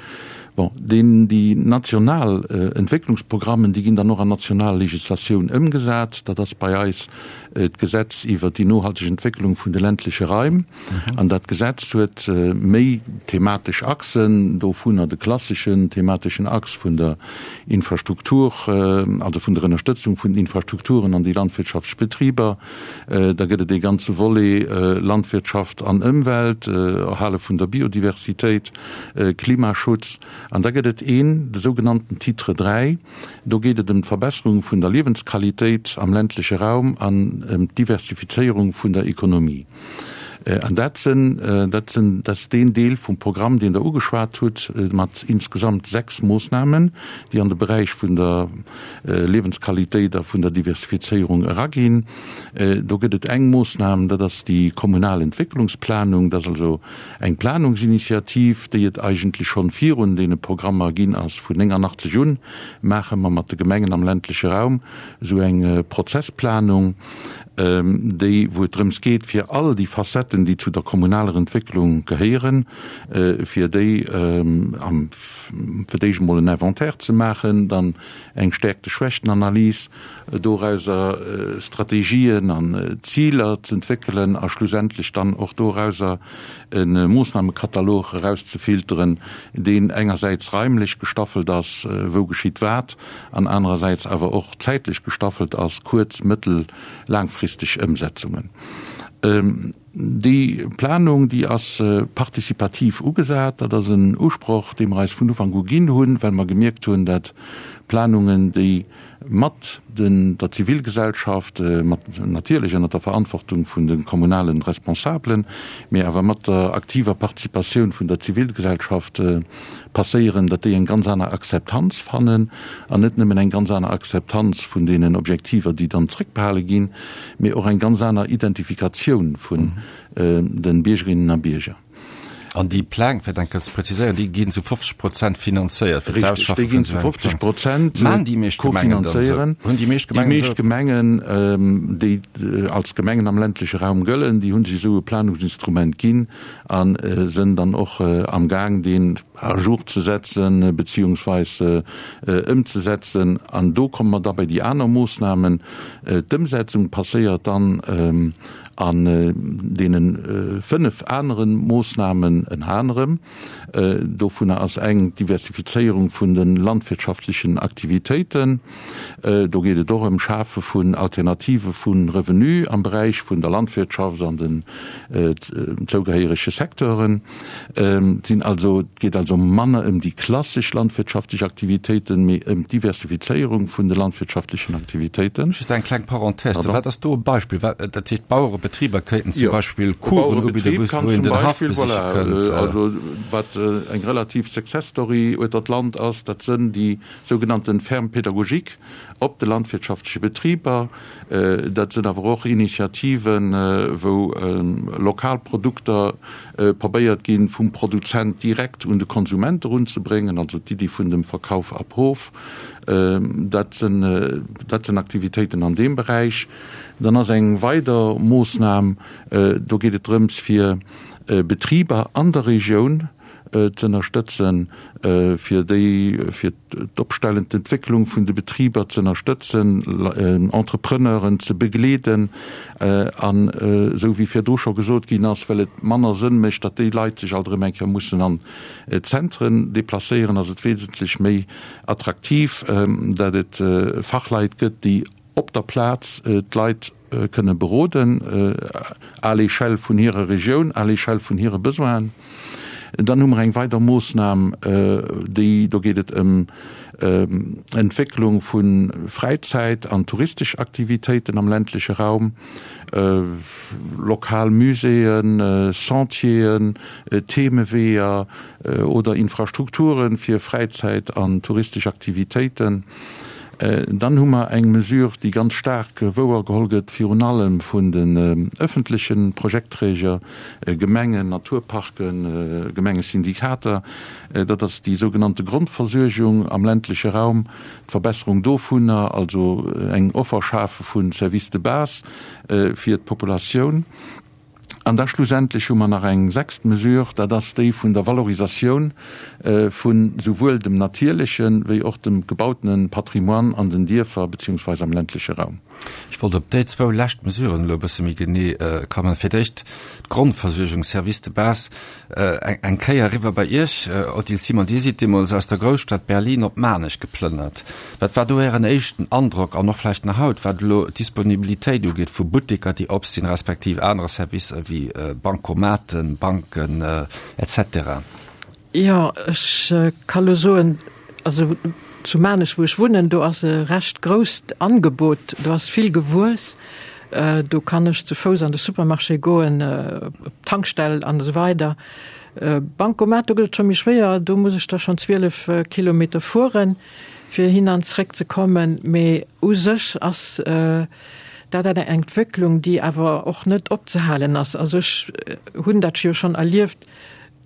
Bon, deen, déi national Entwécklungsprogrammen, déi ginn dann och an national Legislatioun ëmgesat. Dat ass bei eis d'Gesetz iwwert déi nohalteg Entwécklung vun de ländleche Raim. An dat Gesetz huet méi thematesch Achsen, dovunner de klasseschen themateschen Achs vun der Infrastruktur, also vun der Ënnerstëtzung vun den Infrastrukturen an déi landwirtschaftlech Betriber. Da gëtt et ee ganze Volet Landwirtschaft an Ëmwelt, Erhale vun der Biodiversitéit. Klimaschutz. An da gëtt et een, de sougenannten Titre 3, do geet et ëm d'Verbesserung vun der Liewensqualitéit am ländleche Raum an ëm d'Diversifizéierung vun der Ekonomie. An dat sinn, dat sinn, dat ass deen Deel vum Programm, deen Der ugeschwat hutt, mat insgesamt 6 Moossnamen, déi an de Beräich vun der Liewensqualitéit a vun der Diversifizéierung eraginn. Do gëtt et eng Moossnam, dat ass déi kommunal Entwécklungsplanung, dat ass also Eng Planungsinitiativ, déi et eigentlech schonn virun deene Programmer ginn ass. Vun 89 un maache mer mat de Gemengen am ländleche Raum esou eng Prozessplanung, déi, wou et drëms geet, fir all déi Facetten, déi zu der kommunaler Entwécklung gehéieren, fir déi am, fir d'éischt emol en Inventaire ze maachen, dann eng Stärkte-Schwächten-Analys, dorauser Strategien an Ziler z'entwéckelen a schlussendlech dann och dorauser e Moossnamekatalog erauszefilteren, deen engersäits raimlech gestaffelt ass, wou geschitt wat, an anerersäits awer och zäitlech gestaffelt ass, kuerz-, mëttel-, laangfristeg Ëmsetzungen. Déi Planung, déi ass participativ ugesat. Dat ass en Usproch, dee mer eis vun Ufank u ginn hunn, well mer gemierkt hunn, dat Planungen, déi mat der Zivilgesellschaft, mat natierlech ënner der Verantwortung vun de kommunale Responsabelen, mee awer mat der aktiver Participatioun vun der Zivilgesellschaft passéieren, datt déi eng ganz aner Akzeptanz fannen an net nëmmen eng ganz aner Akzeptanz vun deenen Objektiver, déi dann zréckbehale ginn, mee och eng ganz aner Identifikatioun vun de Biergerinnen a Bierger.
An déi Pläng, fir dat eng Kéier ze präziséieren, déi ginn zu 50 Prozent finanzéiert
fir d'Ausschaffe vun esou engem Plang. Richtig, déi ginn zu 50 Prozent
Maachen déi meescht Gemengen dann esou?
Hunn déi meescht Gemengen esou? Déi meescht Gemengen, déi als Gemengen am ländleche Raum gëllen, déi hu sech esou e Planungsinstrument ginn a sënn dann och amgaang, deen à jour ze setzen, beziehungsweis ëmzesetzen. An do komme mer da bei déi aner Moossnamen. D'Ëmsetzung passéiert dann An deene fënnef anere Moossnamen, ënner anerem, dovunner ass eng d'Diversifizéierung vun de landwirtschaftlechen Aktivitéiten. Do geet et och ëm Schafe vun Alternative vu Revenu am Beräich vun der Landwirtschaft an den zougehéierege Secteuren. Et sinn also, et geet also manner ëm déi klassesch landwirtschaftlech Aktivitéiten, mee ëm d'Diversifizéierung vun de landwirtschaftlechen Aktivitéiten.
Just eng kleng Parenthèse, Pardon. Wat ass do e Beispill? Wat, dat heescht, Bauerebetriber kéinten zum Beispill Coursen ubidden, wou een den Haff besiche kënnt?
Jo, also wat eng relativ Success Story ueter d'Land ass, dat sënn déi sougenannten Fermes pédagogiques op de landwirtschaftleche Betriber. Dat sënn awer och Initiativen, wou lokal Produkter probéiert ginn, vum Produzent direkt un de Konsument erunzebréngen, also d'Iddi vun dem Verkauf ab Hof. Dat sënn, dat sënn Aktivitéiten an deem Beräich. Dann ass eng weider Moossnam, do geet et drëms, fir Betriber an der Regioun z'ënnerstëtzen, fir déi, fir d'Opstellen, d'Entwécklung vun de Betriber z'ënnerstëtzen, Entrepreneuren ze begleeden an, esou wéi virdru scho gesot ginn ass, well et manner Sënn mécht, datt déi Leit sech alt erëm eng Kéier mussen an d'Zentren deplacéieren, ass et wesentlech méi attraktiv, datt et Fachleit gëtt, déi op der Plaz d'Leit kënne beroden, à l'échelle vun hirer Regioun, à l'échelle vun hire Besoinen. Dann hu mer eng weider Moossnam, déi, do geet et ëm Entwécklung vu Fräizäit an touristesch Aktivitéiten am ländleche Raum, lokal Muséeën, Sentieren, Themeweeër oder Infrastrukture fir Fräizäit an touristesch Aktivitéiten. Dann hu mer eng Mesure, déi ganz staark wouergeholl gëtt, virun allem vun den öffentleche Projektträger, Gemengen, Naturparken, Gemengesyndikater. Dat ass déi sougenannte Grondversuergung am ländleche Raum, d'Verbesserung dovunner, also eng Offer schafe vu Services de base fir d'Populatioun. An da schlussendlech hu mer nach eng sechst Mesure, dat ass déi vun der Valorisatioun vu souwuel dem natierleche wéi och dem gebautene Patrimoine an den Dierfer beziehungsweise am ländleche Raum.
Ech wollt op déi zwou lescht Mesuren elo e bësse méi genee kommen. Fir d'éischt d'Grondversuergung, Services de base. Eng Kéier eriwwer bei Iech, Odile Simon, Dir sidd deemools aus der Grousstad Berlin op Maarnech geplënnert. Wat war do Ären éischten Androck an och vläicht nach haut, wat elo d'Disponibilitéit ugeet vu Butteker, déi op sinn, respektiv anere Servicer wéi Bancomaten, Banken, etc.?
Jo, ech ka lo soen, also zu Maarnech, wou ech wunnen, do ass e recht grousst Angebot, do ass vill gewuess. Do kann ech zu Fouss an de Supermarché goen, op d'Tankstell an esou weider. Bancomat, do gëtt et scho méi schwéier, do muss ech da schonn 12 Kilometer fueren, fir hin an zréck ze kommen. Mee u sech ass dat eng Entwécklung, déi awer och net opzehalen ass. Also ech hunn dat jo schonn erlieft,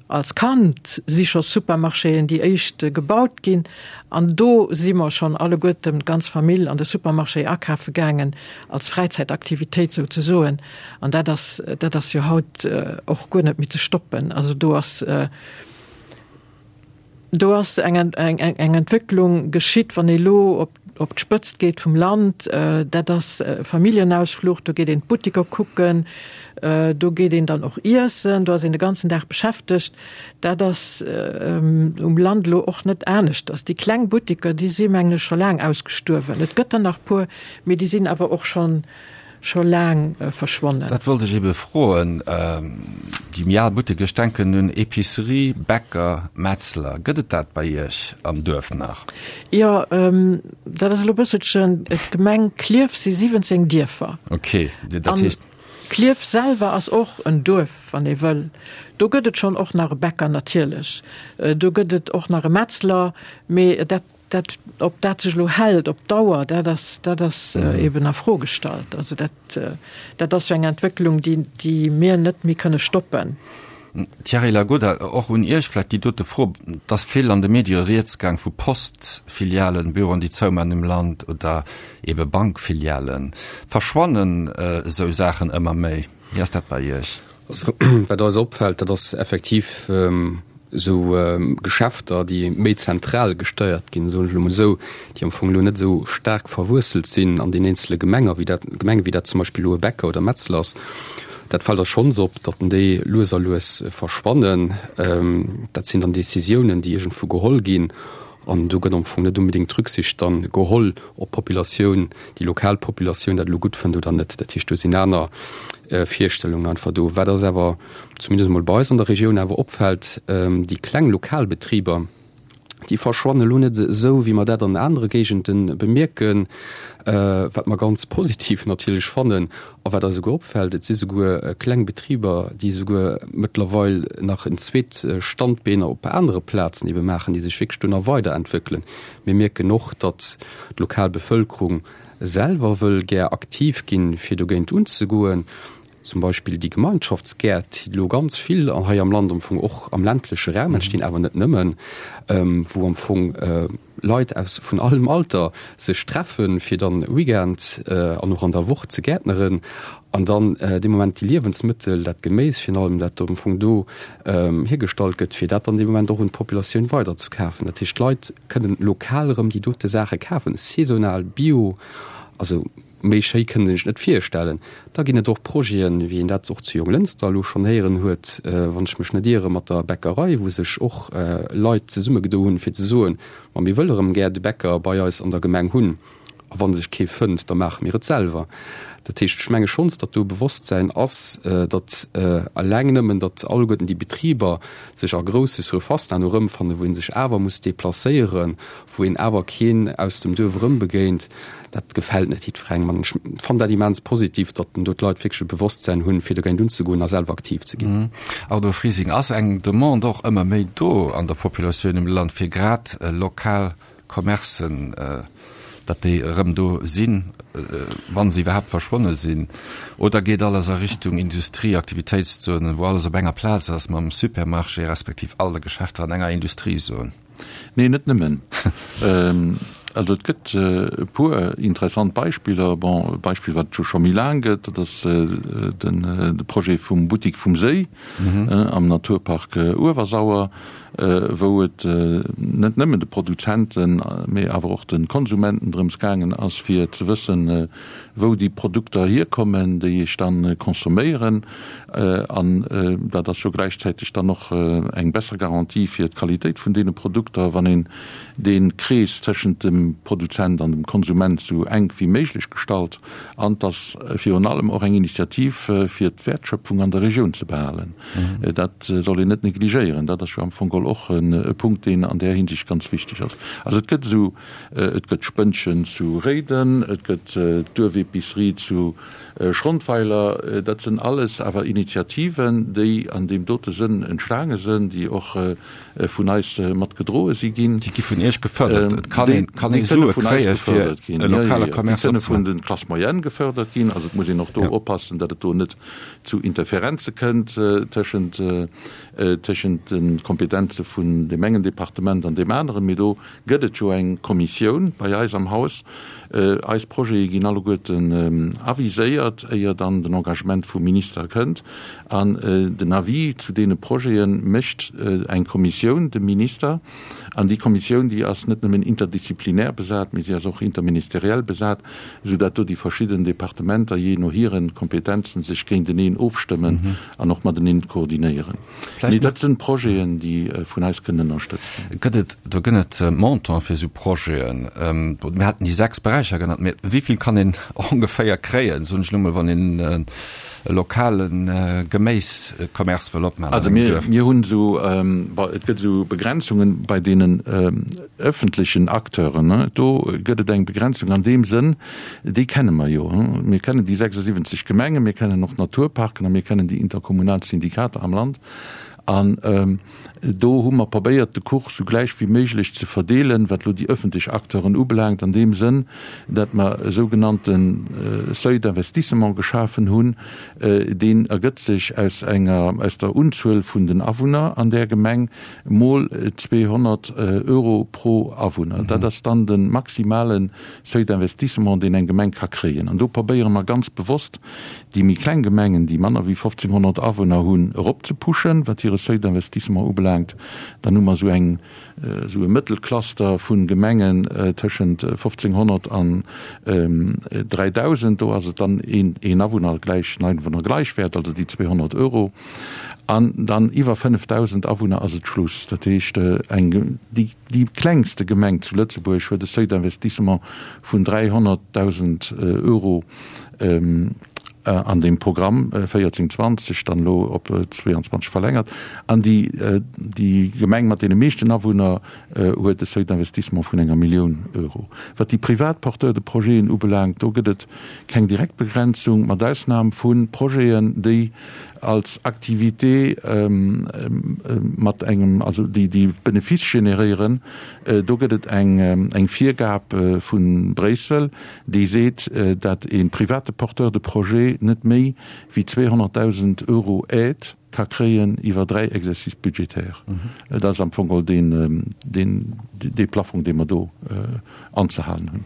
Als Kand si scho Supermarchéen déi éischt gebaut ginn an do si mer schonn alleguerten, d'ganz Famill, an de Supermarché akafe gaangen, als Fräizäitaktivitéit souzesoen. An dat ass, dat ass jo haut och guer net méi ze stoppen. Also do ass, do ass eng, eng, eng Entwécklung geschitt, wann ee lo op, op d'Spëtzt geet vum Land, dat ass Familljenausfluch, do geet een d'Buttiker kucken, do geet een dann och iessen, do ass een de ganzen Dag beschäftegt. Dat ass um Land elo och net aneschters. Déi kleng Buttiker, déi si mengen ech scho laang ausgestuerwen. Et gëtt der nach puer, mee déi sinn awer och schonn scho laang verschwonnen.
Dat wollt ech ebe froen. Déi méi al Butteker, ech denken un Epicerie, Bäcker, Metzler, gëtt et dat bei Iech am Duerf nach?
Jo, dat ass elo e bësselchen, d'Gemeng Klierf si 17 Dierfer.
Ok, dat heescht.
Klierf selwer ass och en Duerf, wann ee wëll. Do gëtt et schonn och nach e Bäcker natierlech, do gëtt et och nach e Metzler, mee dat Dat, ob dat sech elo hält op Dauer, dat ass, dat ass eben a Fro gestallt. Also dat, dat ass jo eng Entwécklung, déi, déi mir net méi kënne stoppen.
Thierry Lagoda, och un Iech vläicht déi dote Fro. Et ass vill an de Medie rieds gaang vu Postfilialen, Büroen, déi zouman um Land oder ebe Bankfilialen. Verschwannen esou Saachen ëmmer méi? Wéi ass dat bei Iech?
Also wat eis opfält, dat ass effektiv esou Geschäfter, déi méi zentral gesteiert ginn, soen ech elo mol esou, déi am Fong elo net esou staark verwuesselt sinn an den eenzele Gemenger, wéi dat, Gemengen, wéi dat zum Beispill elo e Bäcker oder Metzler ass. Dat fält eis schonns op, datt déi lues a lues verschwannen. Dat sinn dann Décisiounen, déi iergendwou geholl ginn an do gëtt am Fong net unbedéngt Rücksicht dann geholl, ob d'Populatioun, déi lokal Populatioun dat elo gutt fënnt oder net. Dat heescht, do sinn aner Virstellungen einfach do. Wat eis awer, zumindest emol bei eis an der Regioun, awer opfält, déi kleng lokal Betriber, Déi verschwannen elo net esou, wéi mer dat an anere Géigende bemierken, wat mer ganz positiv natierlech fannen a wat eis esouguer opfält, Et si souguer kleng Betriber, déi esouguer mëttlerweil nach en zweet Standbeen op anere Plazen ebe maachen, déi sech wierklech do nach weiderentwéckelen. Mir mierken och, datt d'lokal Bevëlkerung selwer wëll gär aktiv ginn, fir dogéint unzegoen. Zum Beispill déi Gemeinschaftsgäert, déi elo ganz vill hei am Land am Fong och am ländleche Raum entstinn, awer net nëmmen, wou am Fong Leit aus vun allem Alter sech treffen, fir dann Weekend an och an der Woch ze gäertneren an dann dee Moment déi Liewensmëttel, dat Geméis virun allem, dat am Fong do hiergestallt gëtt, fir dat dann dee Moment och un d'Populatioun weiderzekafen. Dat heescht, d'Leit kënnen lokal erëm déi dote Saache kafen, saisonal, bio, also méi schéi kënnt een sech net virstellen. Da ginn et och Projeten, wéi een dat och zu Jonglënster elo schonn héieren huet, wann ech mech net iere mat der Bäckerei, wou sech och Leit zesummegedo hunn, fir ze soen, Ma mir wëlle erëm gär de Bäcker bei eis an der Gemeng hunn. A wa sech kee fënnt, da maache mir et selwer. Dat heescht, ech menge schonns, datt do e Bewosstsäin ass, datt eleng nëmmen, datt alleguerten déi Betriber sech a grousse Surfacen herno erëmfannen, wou ee sech awer muss deplacéieren, wou een awer keen aus dem Duerf erëmbegéint, dat gefält net jiddwerengem. An ech fannen dat immens positiv, datt do d'Leit wierklech e Bewosstsäin hunn, fir dogéint unzegoen a selwer aktiv ze ginn.
Arno Frising, Ass eng Demande och ëmmer méi do an der Populatioun um Land, fir grad lokal Commercen, datt déi erëm do sinn, wa se iwwerhaapt verschwonne sinn? Oder geet alles a Richtung Industrie, Aktivitéitszonen, wou alles op enger Plaz ass mam Supermarché respektiv all de Geschäfter an enger Industriezon?
Nee, net nëmmen. Also et gëtt e puer interessant Beispiller. Bon, e Beispill, wat et jo scho méi laang gëtt, dat ass de Projet vum Buttik vum Séi am Naturpark Uewersauer. wou et net nëmmen de Produzenten, mee awer och de Konsumenten drëms gaangen ass, fir ze wëssen, wou déi Produkter hierkommen, déi ech dann consomméieren. An dat ass jo gläichzäiteg dann och eng besser Garantie fir d'Qualitéit vun deene Produkter, wann een dee Krees tëschent dem Produzent an dem Konsument esou enk wéi méiglech gestalt. An et ass virun allem och eng Initiativ, fir d'Wäertschöpfung an der Regioun ze behalen. Dat soll een net negligéieren. Dat ass jo am Fong geholl och e Punkt, deen an där Hinsicht ganz wichteg ass. Also et gëtt esou, et gëtt d'Spënnchen zu Réiden, et gëtt d'Duerfepicerie zu Schrondweiler. Dat sinn alles awer Initiativen, déi an deem dote Sënn entstaange sinn, déi och vun eis mat gedroe si ginn.
Déi gi vun Iech gefërdert. Et kann een, kann ee Sue kréie fir e lokale Commerce
opzemaachen. Déi kënne vun de Classes moyennes gefërdert ginn. Also et muss een och do oppassen, datt et do net zu Interferenze kënnt tëschent tëschent de Kompetenze vun deem engen Departement an deem aneren. Mee do gëtt et jo eng Kommissioun bei eis am Haus. Eis Projete ginn alleguerten aviséiert, éier dann den Engagement vum Minister kënnt. An den Avis zu deene Projete mécht eng Kommissioun dem Minister. An déi Kommissioun, déi ass net nëmmen interdisziplinär besat, mee si ass och interministeriell besat, esou dat do déi verschidden Departementer jee no hire Kompetenzen sech géinteneen ofstëmmen an och mateneen koordinéieren. Mee dat sinn Projeten, déi vun eis kënnen ënnerstëtzt
ginn. Gëtt et, do gënn et Montant fir esou Projeten? Mir haten déi 6 Beräicher genannt, mee wéi vill kann een ongeféier kréien, soen ech elo mol, wann een e lokale Geméiscommerce wëll opmaachen
an engem Duerf? Also mir hunn esou, bon, et gëtt esou Begrenzungen bei deenen ëffentlechen Acteuren. Do gëtt et eng Begrenzung an deem Sënn, déi kenne mer jo. Mir kennen déi 76 Gemengen, mir kennen och d'Naturparken a mir kennen déi interkommunal Syndikater am Land. An do hu mer probéiert, de Kuch sou gläich wéi méiglech ze verdeelen, wat elo déi ëffentlech Acteuren ubelaangt, an deem Sënn, datt mer e sougenannte Seuil d'investissement geschafen hunn. Deen ergëtt sech aus enger, aus der Unzuel vun den Awunner an där Gemeng mol 200 Euro pro Awunner. Dat ass dann de maximale Seuil d'investissement, deen eng Gemeng ka kréien. An do probéiere mer ganz bewosst, déi méi kleng Gemengen, déi manner wéi 1.500 Awunner hunn, eropzepuschen, wat hire Seuil d'investissement ubelaangt. Dann hu mer esou eng, esou e Mëttelcluster vu Gemengen tëschent 1.500 an 3.000. Do ass et dann een, een Awunner gläich en Einwohner gleichwert, also déi 200 Euro. An dann iwwer 5.000 Awunner ass et Schluss. Dat heescht, eng, déi, déi klengste Gemeng zu Lëtzebuerg huet e Seuil d'investissement vun 300.000 Euro. An deem Programm 14, 20, dann elo op 22 verlängert. An déi, déi Gemeng mat deene meeschten Awunner huet e Seuil d'investissement vun enger Millioun Euro. Wat déi privat Porteurs de projeten ubelaangt, do gëtt et keng direkt Begrenzung, mat Ausnam vu Projeten, déi als Activité mat engem, also déi, déi Benefice generéieren. Do gëtt et eng, eng Virgab vu Bréissel, déi seet, dat e private Porteur de projet net méi wéi 200.000 Euro Aide ka kréien iwwer dräi Exercices budgétaires. Dat ass am Fong geholl deen, deen, dee Plafong, dee mer do anzehalen hunn.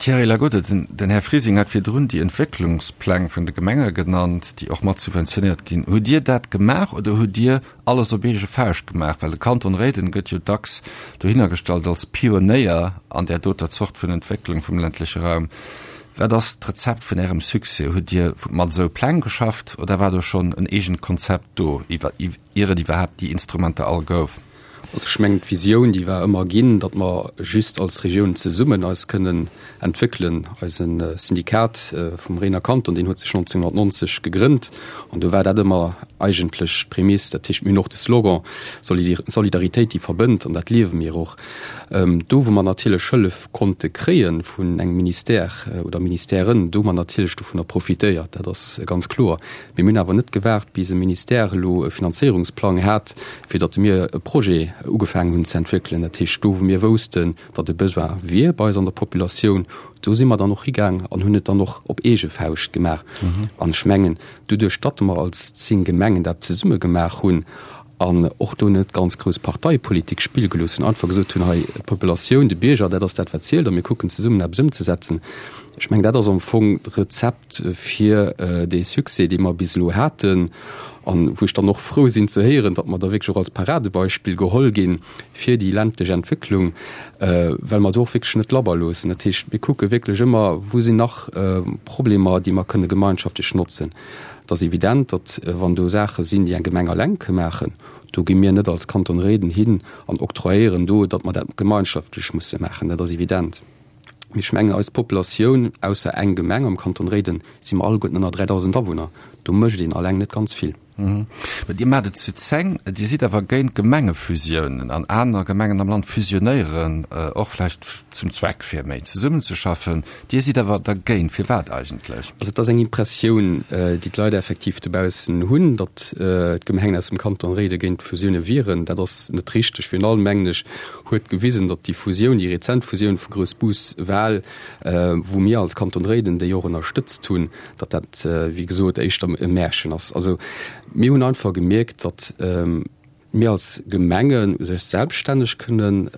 Thierry Lagode, Den Här Frising hat virdrun déi Entwécklungspläng vun de Gemenge genannt, déi och mat subventionéiert ginn. Hutt Dir dat gemaach oder hutt Dir alles op eege Fauscht gemaach? Well de Kanton Réiden gëtt jo dacks dohinner gestallt als Pionéier an där doter Zort vun Entwécklung vum ländleche Raum. Wat ass d'Rezept vun Ärem Succès? Hutt Dir mat esou Pläng geschafft oder war do schonn en eegent Konzept do, ier et iwwerhaapt déi Instrumenter all gouf?
Also ech mengen, d'Visioun, déi war ëmmer ginn, datt mer just als Regioun zesummen eis kënnen entwéckelen. Eise Syndikat vum Réiner Kanton, deen huet sech 1990 gegrënnt an do war dat ëmmer eigentlech d'Prämiss. Dat heescht, mir hunn och de Slogan Solidaritéit, déi verbënnt an dat liewe mir och. Do, wou mer natierlech Hëllef konnte kréie vun engem Ministère oder Ministèren, do hu mer natierlech dovunner profitéiert, dat ass ganz kloer. Mee mir hunn awer net gewaart, bis e Ministère elo e Finanzéierungsplang hat, fir datt mir e Projet ugefaangen hunn ze entwéckelen. Dat heescht, do wou mir woussten, datt e Besoin wier bei eis an der Populatioun, do si mer dann och higaang an hunn et dann och op eege Fauscht gemaach. An ech mengen, doduerch datt mer als 10 Gemengen dat zesumme gemaach hunn an och do net ganz grouss Parteipolitik spille gelooss hunn, einfach gesot hunn, hei d'Populatioun, de Bierger, dat ass dat wat zielt a mir kucken zesummen eppes ëmzesetzen, ech mengen, dat ass am Fong d'Rezept fir dee Succès, dee mer bis elo haten. An wou ech dann och frou sinn ze héieren, datt mer da wierklech och als Paradebeispill geholl gi fir déi ländlech Entwécklung, well mer do och wierklech net labber loossen. Dat heescht, mir kucke wierklech ëmmer, wou sinn nach Problemer, déi mer kënne gemeinschaftlech notzen. Et ass evident, datt wann do Saache sinn, déi eng Gemeng alleng ka maachen, do gi mir net als Kanton Réiden hin an octroyéieren do, datt mer dat gemeinschaftlech musse maachen. Dat ass evident. Mee ech mengen, eis Populatioun, ausser eng Gemeng am Kanton Réiden, si mer alleguerten ënner 3.000 Awunner. Do mécht een alleng net ganz vill.
Mä Dir maacht et zu 10. Dir sidd awer géint Gemengefusiounen an aner Gemengen am Land fusionéieren och vläicht zum Zweck, fir méi zesummenzeschaffen. Dir sidd awer dergéint. Firwat eigentlech?
Also et ass eng Impressioun, déi d'Leit effektiv dobaussen hunn, datt d'Gemengen aus dem Kanton Réiden géint Fusioune wieren. Dat ass net richteg. Virun allem, mengen ech, huet gewisen, datt déi Fusioun, déi rezent Fusioun vu Groussbus-Wal, wou mir als Kanton Réiden déi och ënnerstëtzt hunn, datt dat, wéi gesot, éischter e Märchen ass. Also mir hunn einfach gemierkt, datt mir als Gemenge sech selbststänneg kënnen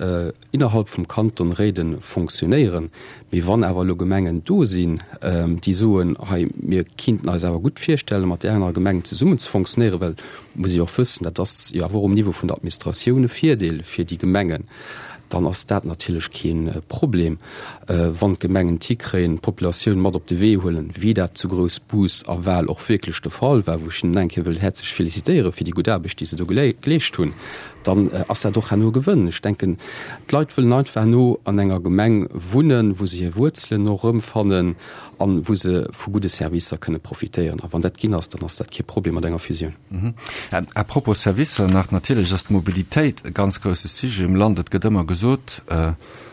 innerhalb vum Kanton Réiden fonctionnéieren. Mee wann awer elo Gemengen do sinn, déi soen, hei mir kinnten eis awer gutt virstellen, mat där anerer Gemeng zesummen ze fonctionnéieren, well muss ee och wëssen, dat ass jo awer och um Niveau vun der Administratioun e Virdeel fir déi Gemengen, dann ass dat natierlech kee Problem, wann d'Gemengen et hikréien, d'Populatioun mat op de Wee huelen, wéi dat zu Groussbus a Wal och wierklech de Fall war, wou ech hinnen eng Kéier wëll häerzlech félicitéiere fir déi gutt Aarbecht, déi se do geleescht hunn, dann ass dat och herno e Gewënn. Ech denken, d'Leit wëllen einfach herno an enger Gemeng wunnen, wou se hir Wuerzelen och erëmfannen an wou se vu gudde Servicer kënne profitéieren. A wann dat ginn ass, dann ass dat kee Problem mat enger Fusioun.
À propos Servicer nach, natierlech ass d'Mobilitéit e ganz grousse Sujet um Land. Et gëtt ëmmer gesot,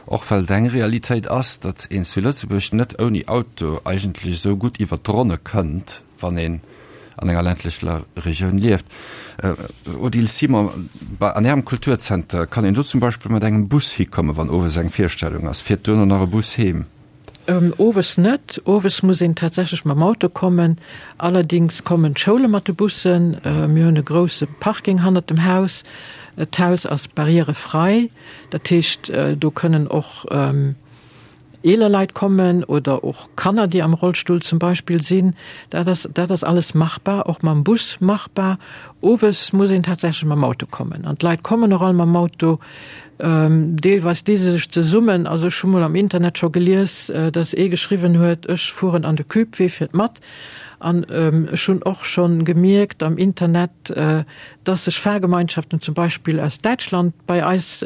och well et eng Realitéit ass, datt een zu Lëtzebuerg net ouni Auto eigentlech esou gutt iwwert d'Ronne kënnt, wann een an enger ländlecher Regioun lieft. Odile Simon, bei an Ärem Kulturzenter, kann een do zum Beispill mat engem Bus hikommen, wann owes eng Virstellung ass? Fiert duerno nach e Bus heem?
Owes net. Owes muss een tatsächlech mam Auto kommen. Allerdings kommen d'Schoule mat de Bussen. Mir hunn e grousse Parking hannert dem Haus. D'Haus ass barrièrefrei. Dat heescht, do kënnen och eeler Leit kommen oder och Kanner, déi am Rollstull zum Beispill sinn. Dat ass, dat ass alles machbar, och mam Bus machbar. Owes muss een tatsächlech mam Auto kommen. An d'Leit kommen och all mam Auto. Deelweis di se sech zesummen. Also ech hu mol am Internet scho gelies, datt ee geschriwwen huet, ech fueren an de Cube, wee fiert mat? An ech hunn och schonn gemierkt am Internet, dass sech Fahrgemeinschaften zum Beispill aus Däitschland bei eis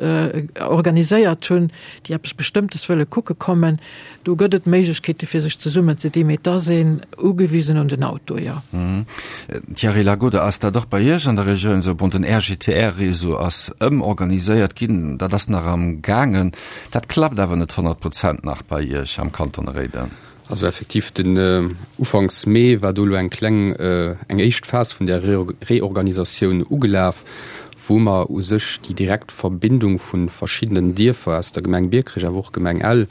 organiséiert hunn, déi eppes Bestëmmtes wëlle kucke kommen. Do gëtt et Méiglechkeete fir sech zesummen ze dinn, mee et ass een ugewisen un den Auto, jo.
Thierry Lagode, Ass dat och bei Iech an der Regioun esou? Bon, den RGTR-Réseau ass ëmorganiséiert ginn, dat ass nach am gaangen. Dat klappt awer net 100 Prozent nach bei Iech am Kanton Réiden.
Also effektiv, den Ufanks Mee war do elo eng kleng, eng éischt Phas vun där Reorganisatioun ugelaf, wou mer u sech déi direkt Verbindung vu verschiddenen Dierfer aus der Gemeng Biekerech, awer och Gemeng Ell,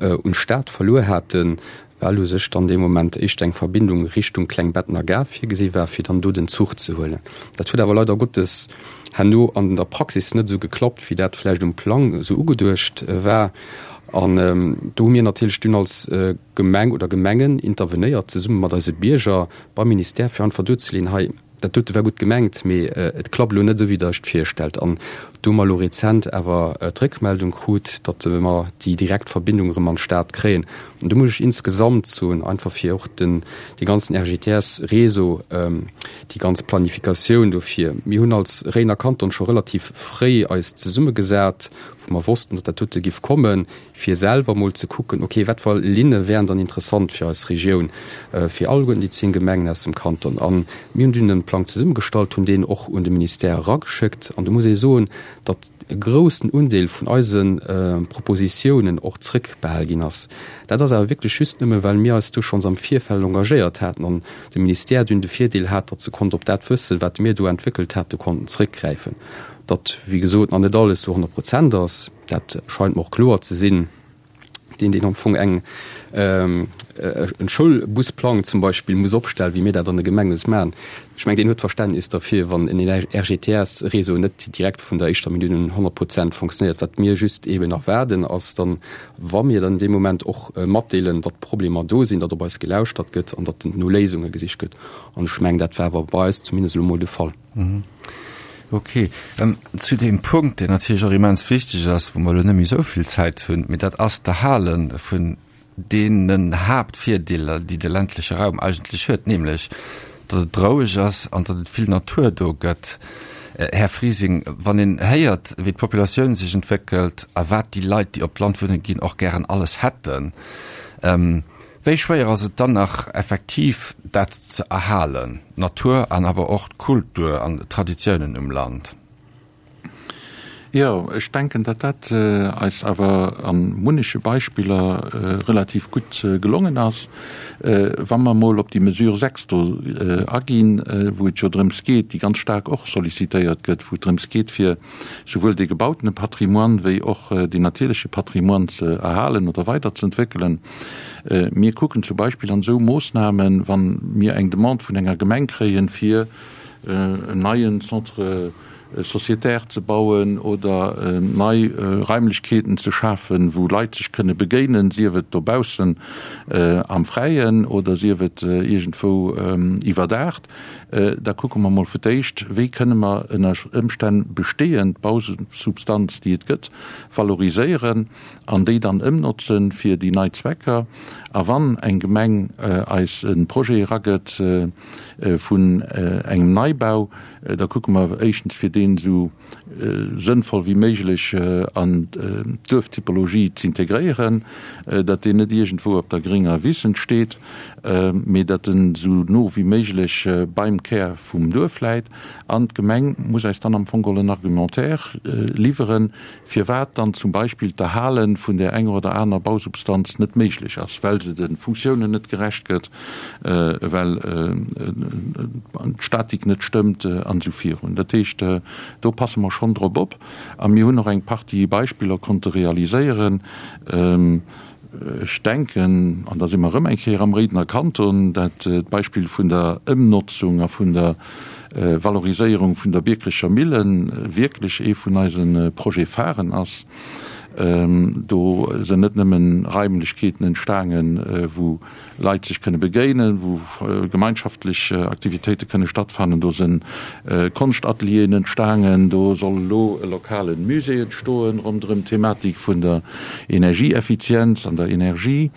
un d'Stad verluer haten, well u sech dann dee Moment éischter eng Verbindung Richtung Klengbettener Gare virgesi war, fir dann do den Zuch ze huelen. Dat huet awer leider Gottes herno an der Praxis net esou geklappt, wéi dat vläicht um Plang esou ugeduecht war. An do hu mir natierlech dunn als Gemeng oder Gemengen intervenéiert, zesumme mat eise Bierger beim Ministère, fir einfach duerzeleeën, hei, dat dote war gutt gemengt, mee et klappt elo net esou, wéi Der Iech et virstellt. An do hu mer elo rezent awer d'Réckmeldung krut, datt mer déi direkt Verbindung erëm an d'Stad kréien. An do muss ech insgesamt soen, einfach fir och den, dee ganzen RGTS-Réseau, déi ganz Planifikatioun dofir, mir hunn als Réidener Kanton scho relativ fréi eis zesummegesat, wou mer wossten, datt dat dote giff kommen, fir selwer mol ze kucken, okay, wat fir Linne wären dann interessant fir eis Regioun, fir alleguerten déi 10 Gemengen aus dem Kanton. A mir hunn dunn e Plang zesummegestallt, hunn deen och un de Ministère erageschéckt. An do muss ee soen, datt e groussen Undeel vun eise Propositiounen och zrëckbehal ginn ass. Dat ass awer wierklech just nëmme, well mir eis do schonns am Virfeld engagéiert haten an de Ministère dunn de Virdeel hat, datt se konnt op dat Wëssen, wat mir do entwéckelt haten, konnten zrëckgräifen. Datt, wéi gesot, nach net alles zu 100 Prozent ass, dat scheint mer och kloer ze sinn. Deen, deen am Fong eng, en Schoulbusplang zum Beispill muss opstellen, wéi mir dat an de Gemenge maachen, ech mengen, deen huet Verständnis derfir, wann en RGTS-Réseau net direkt vun der éischter Minutt un 100 Prozent fonctionnéiert. Wat mir just eeben erwaarden, ass dann, wa mir dann dee Moment och matdeelen, datt Problemer do sinn, datt op eis gelauschtert gëtt an datt no Léisunge gesicht gëtt. An ech mengen, dat war awer bei eis zumindest elo mol de Fall.
Ok. Zu deem Punkt, deen natierlech och immens wichteg ass, wou mer elo net méi esou vill Zäit hunn, mee dat ass d'Erhale vun deenen Haaptvirdeeler, déi de ländleche Raum eigentlech huet, nämlech datt et roueg ass an datt et vill Natur do gëtt. Här Frising, wann een héiert, wéi d'Populatioun sech entwéckelt a wat déi Leit, déi op d'Land wunne ginn, och gären alles hätten, Wéi schwéier ass et dann nach effektiv dat ze erhalen, d'Natur an awer och d'Kultur an d'Traditiounen um Land?
Jo, ech denken, datt dat eis awer a munneche Beispiller relativ gutt gelongen ass. Wa mer emol op déi Mesure 6 do aginn, wou et jo drëms geet, déi ganz staark och sollicitéiert gëtt, wou et drëms geet, fir souwuel dee gebautene Patrimoine wéi och deen natierleche Patrimoine ze erhalen oder weiderzëentwéckelen. Mir kucken zum Beispill an esou Moossnamen, wa mir eng Demande vun enger Gemeng kréien, fir en neien Centre sociétaire ze bauen oder nei Raimlechkeeten ze schafen, wou Leit sech kënne begéinen, sief et dobaussen am Fräien oder sief et iergendwou iwwerdaacht, Da kucke mer mol fir d'éischt, wéi kënne mer ënner Ëmstänn bestehend Bausubstanz, déi et gëtt, valoriséieren an déi dann ëmnotze fir déi nei Zwecker. A wann eng Gemeng eis e Projet eragëtt vun engem Neibau, da kucke mer éischtens, fir deen esou sënnvoll wéi méiglech an d'Duerftypologie z'integréieren, datt deen net iergendwou op der gringer Wiss entsteet, mee datt en esou no wéi méiglech beim Kär vum Duerf läit. An d'Gemeng muss eis dann am Fong geholl en Argumentaire liwweren, firwat dann zum Beispill d'Erhale vun där enger oder aner Bausubstanz net méiglech ass, well se de Funktiounen net gerecht gëtt, well d'Statik net stëmmt an esou virun. Dat heescht, do passe mer schonn drop op a mir hunn och eng Partie Beispiller konnte realiséieren. Ech denken, an da si mer erëm eng Kéier am Réidener Kanton, dat d'Beispill vun der Ëmnotzung a vun der Valoriséierung vun der Biekerecher Millen wierklech ee vun eise Projet-pharen ass. Do sinn net nëmmen Raimlechkeeten entstaangen, wou Leit sech kënne begéinen, wou gemeinschaftlech Aktivitéite kënne stattfannen. Do sinn Konschtatelieren entstaangen. Do soll elo e lokale Musée entstoen ronderëm d'Thematik vun der Energieeffizienz an der Energie.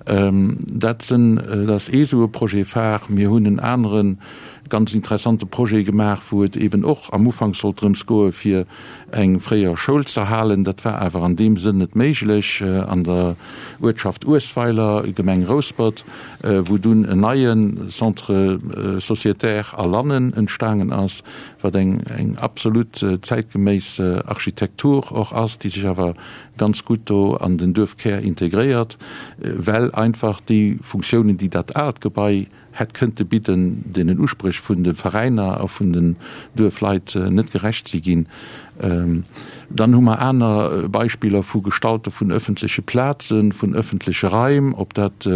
Dat sinn, dat ass ee sou e Projet phare. Mir hunn en anere ganz interessante Projet gemaach, wou et eben och am Ufank sollt drëms goe fir eng fréier Schoul z'erhalen. Dat war awer an deem Sënn net méiglech an der Uertschaft Uesweiler, Gemeng Rouspert, wou dunn en neie Centre sociétaire a Lannen entstaangen ass, wat eng eng absolut zäitgeméiss Architektur och ass, déi sech awer ganz gutt do an den Duerfkär integréiert, well einfach déi Funktiounen, déi dat aalt Gebai hätt kënnte bidden, deenen Uspréch vun de Veräiner a vun den Duerfleit net gerecht si ginn. Dann hu mer aner Beispiller vu Gestalte vun öffentleche Plazen, vun öffentleche Raim, ob dat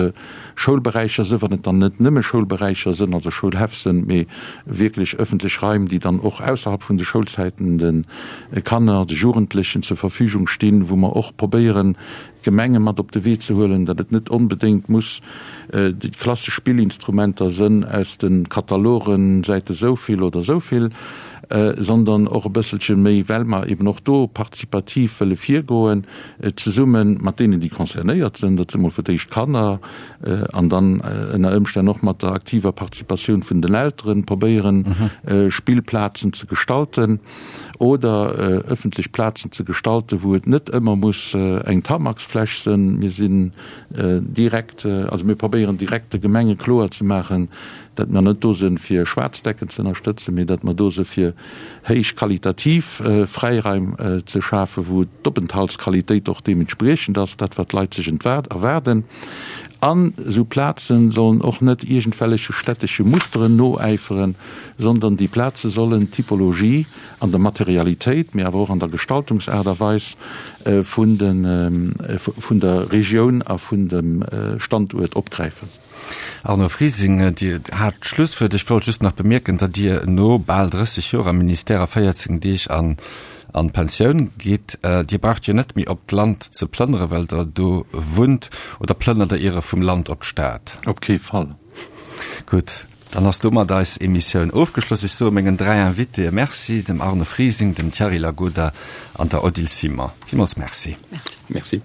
Schoulberäicher sënn, wann et dann net nëmme Schoulberäicher sënn, also Schoulhäff sënn, mee wierklech öffentlech Raim, déi dann och ausserhalb vun de Schoulzäiten de Kanner, de Jugendlechen zur Verfügung stinn, wou mer och probéieren, d'Gemenge mat op de Wee ze huelen, datt et net onbedéngt muss déi klassesch Spillinstrumenter sënn aus de Katalogen, Säite souvill oder souvill, sondern och e bësselche méi, well mer eben och do partizipativ wëlle virgoen, zesumme mat deenen, déi concernéiert sënn, dat si mol fir d'éischt d'Kanner, an dann ënner Ëmstänn och mat der aktiver Participatioun vun den Elteren, probéieren, Spillplazen ze gestalten. Oder ëffentlech Plazen ze gestalten, wou et net ëmmer muss eng Tamaxfläch sënn. Mir sinn direkt, also mir probéieren direkt de Gemenge kloer ze maachen, datt mer net do sënn fir Schwaarz Decken ze ënnerstëtzen, mee datt mer do së fir héich qualitativ Fräiraim ze schafen, wou d'Openthaltsqualitéit och deementspriechend ass, dat wat d'Leit sech erwaarden. An esou Plazen sollen och net iergendwelleche stättesche Musteren noäiferen, sondern déi Plaze sollen d'Typologie an der Materialitéit, mee awer och an der Gestaltungsaart a Weis vun vun der Regioun a vun dem Standuert opgräifen.
Arno Frising, Dir hat d'Schlusswuert. Ech wollt just nach bemierken, datt Dir no bal 30 Joer am Ministère a 14 Deeg an an d'Pensioun gitt. Dir braucht jo net méi op d'Land ze plënnere well Der do wunnt. Oder plënnert Der Iere vum Land op d'Stad?
Op kee Fall.
Gutt, dann ass domat eis Emissioun ofgeschloss. Ech soe mengen 3 Invitéë Merci, dem Arno Frising, dem Thierry Lagoda an der Odile Simon. Villmools Merci.
Merci.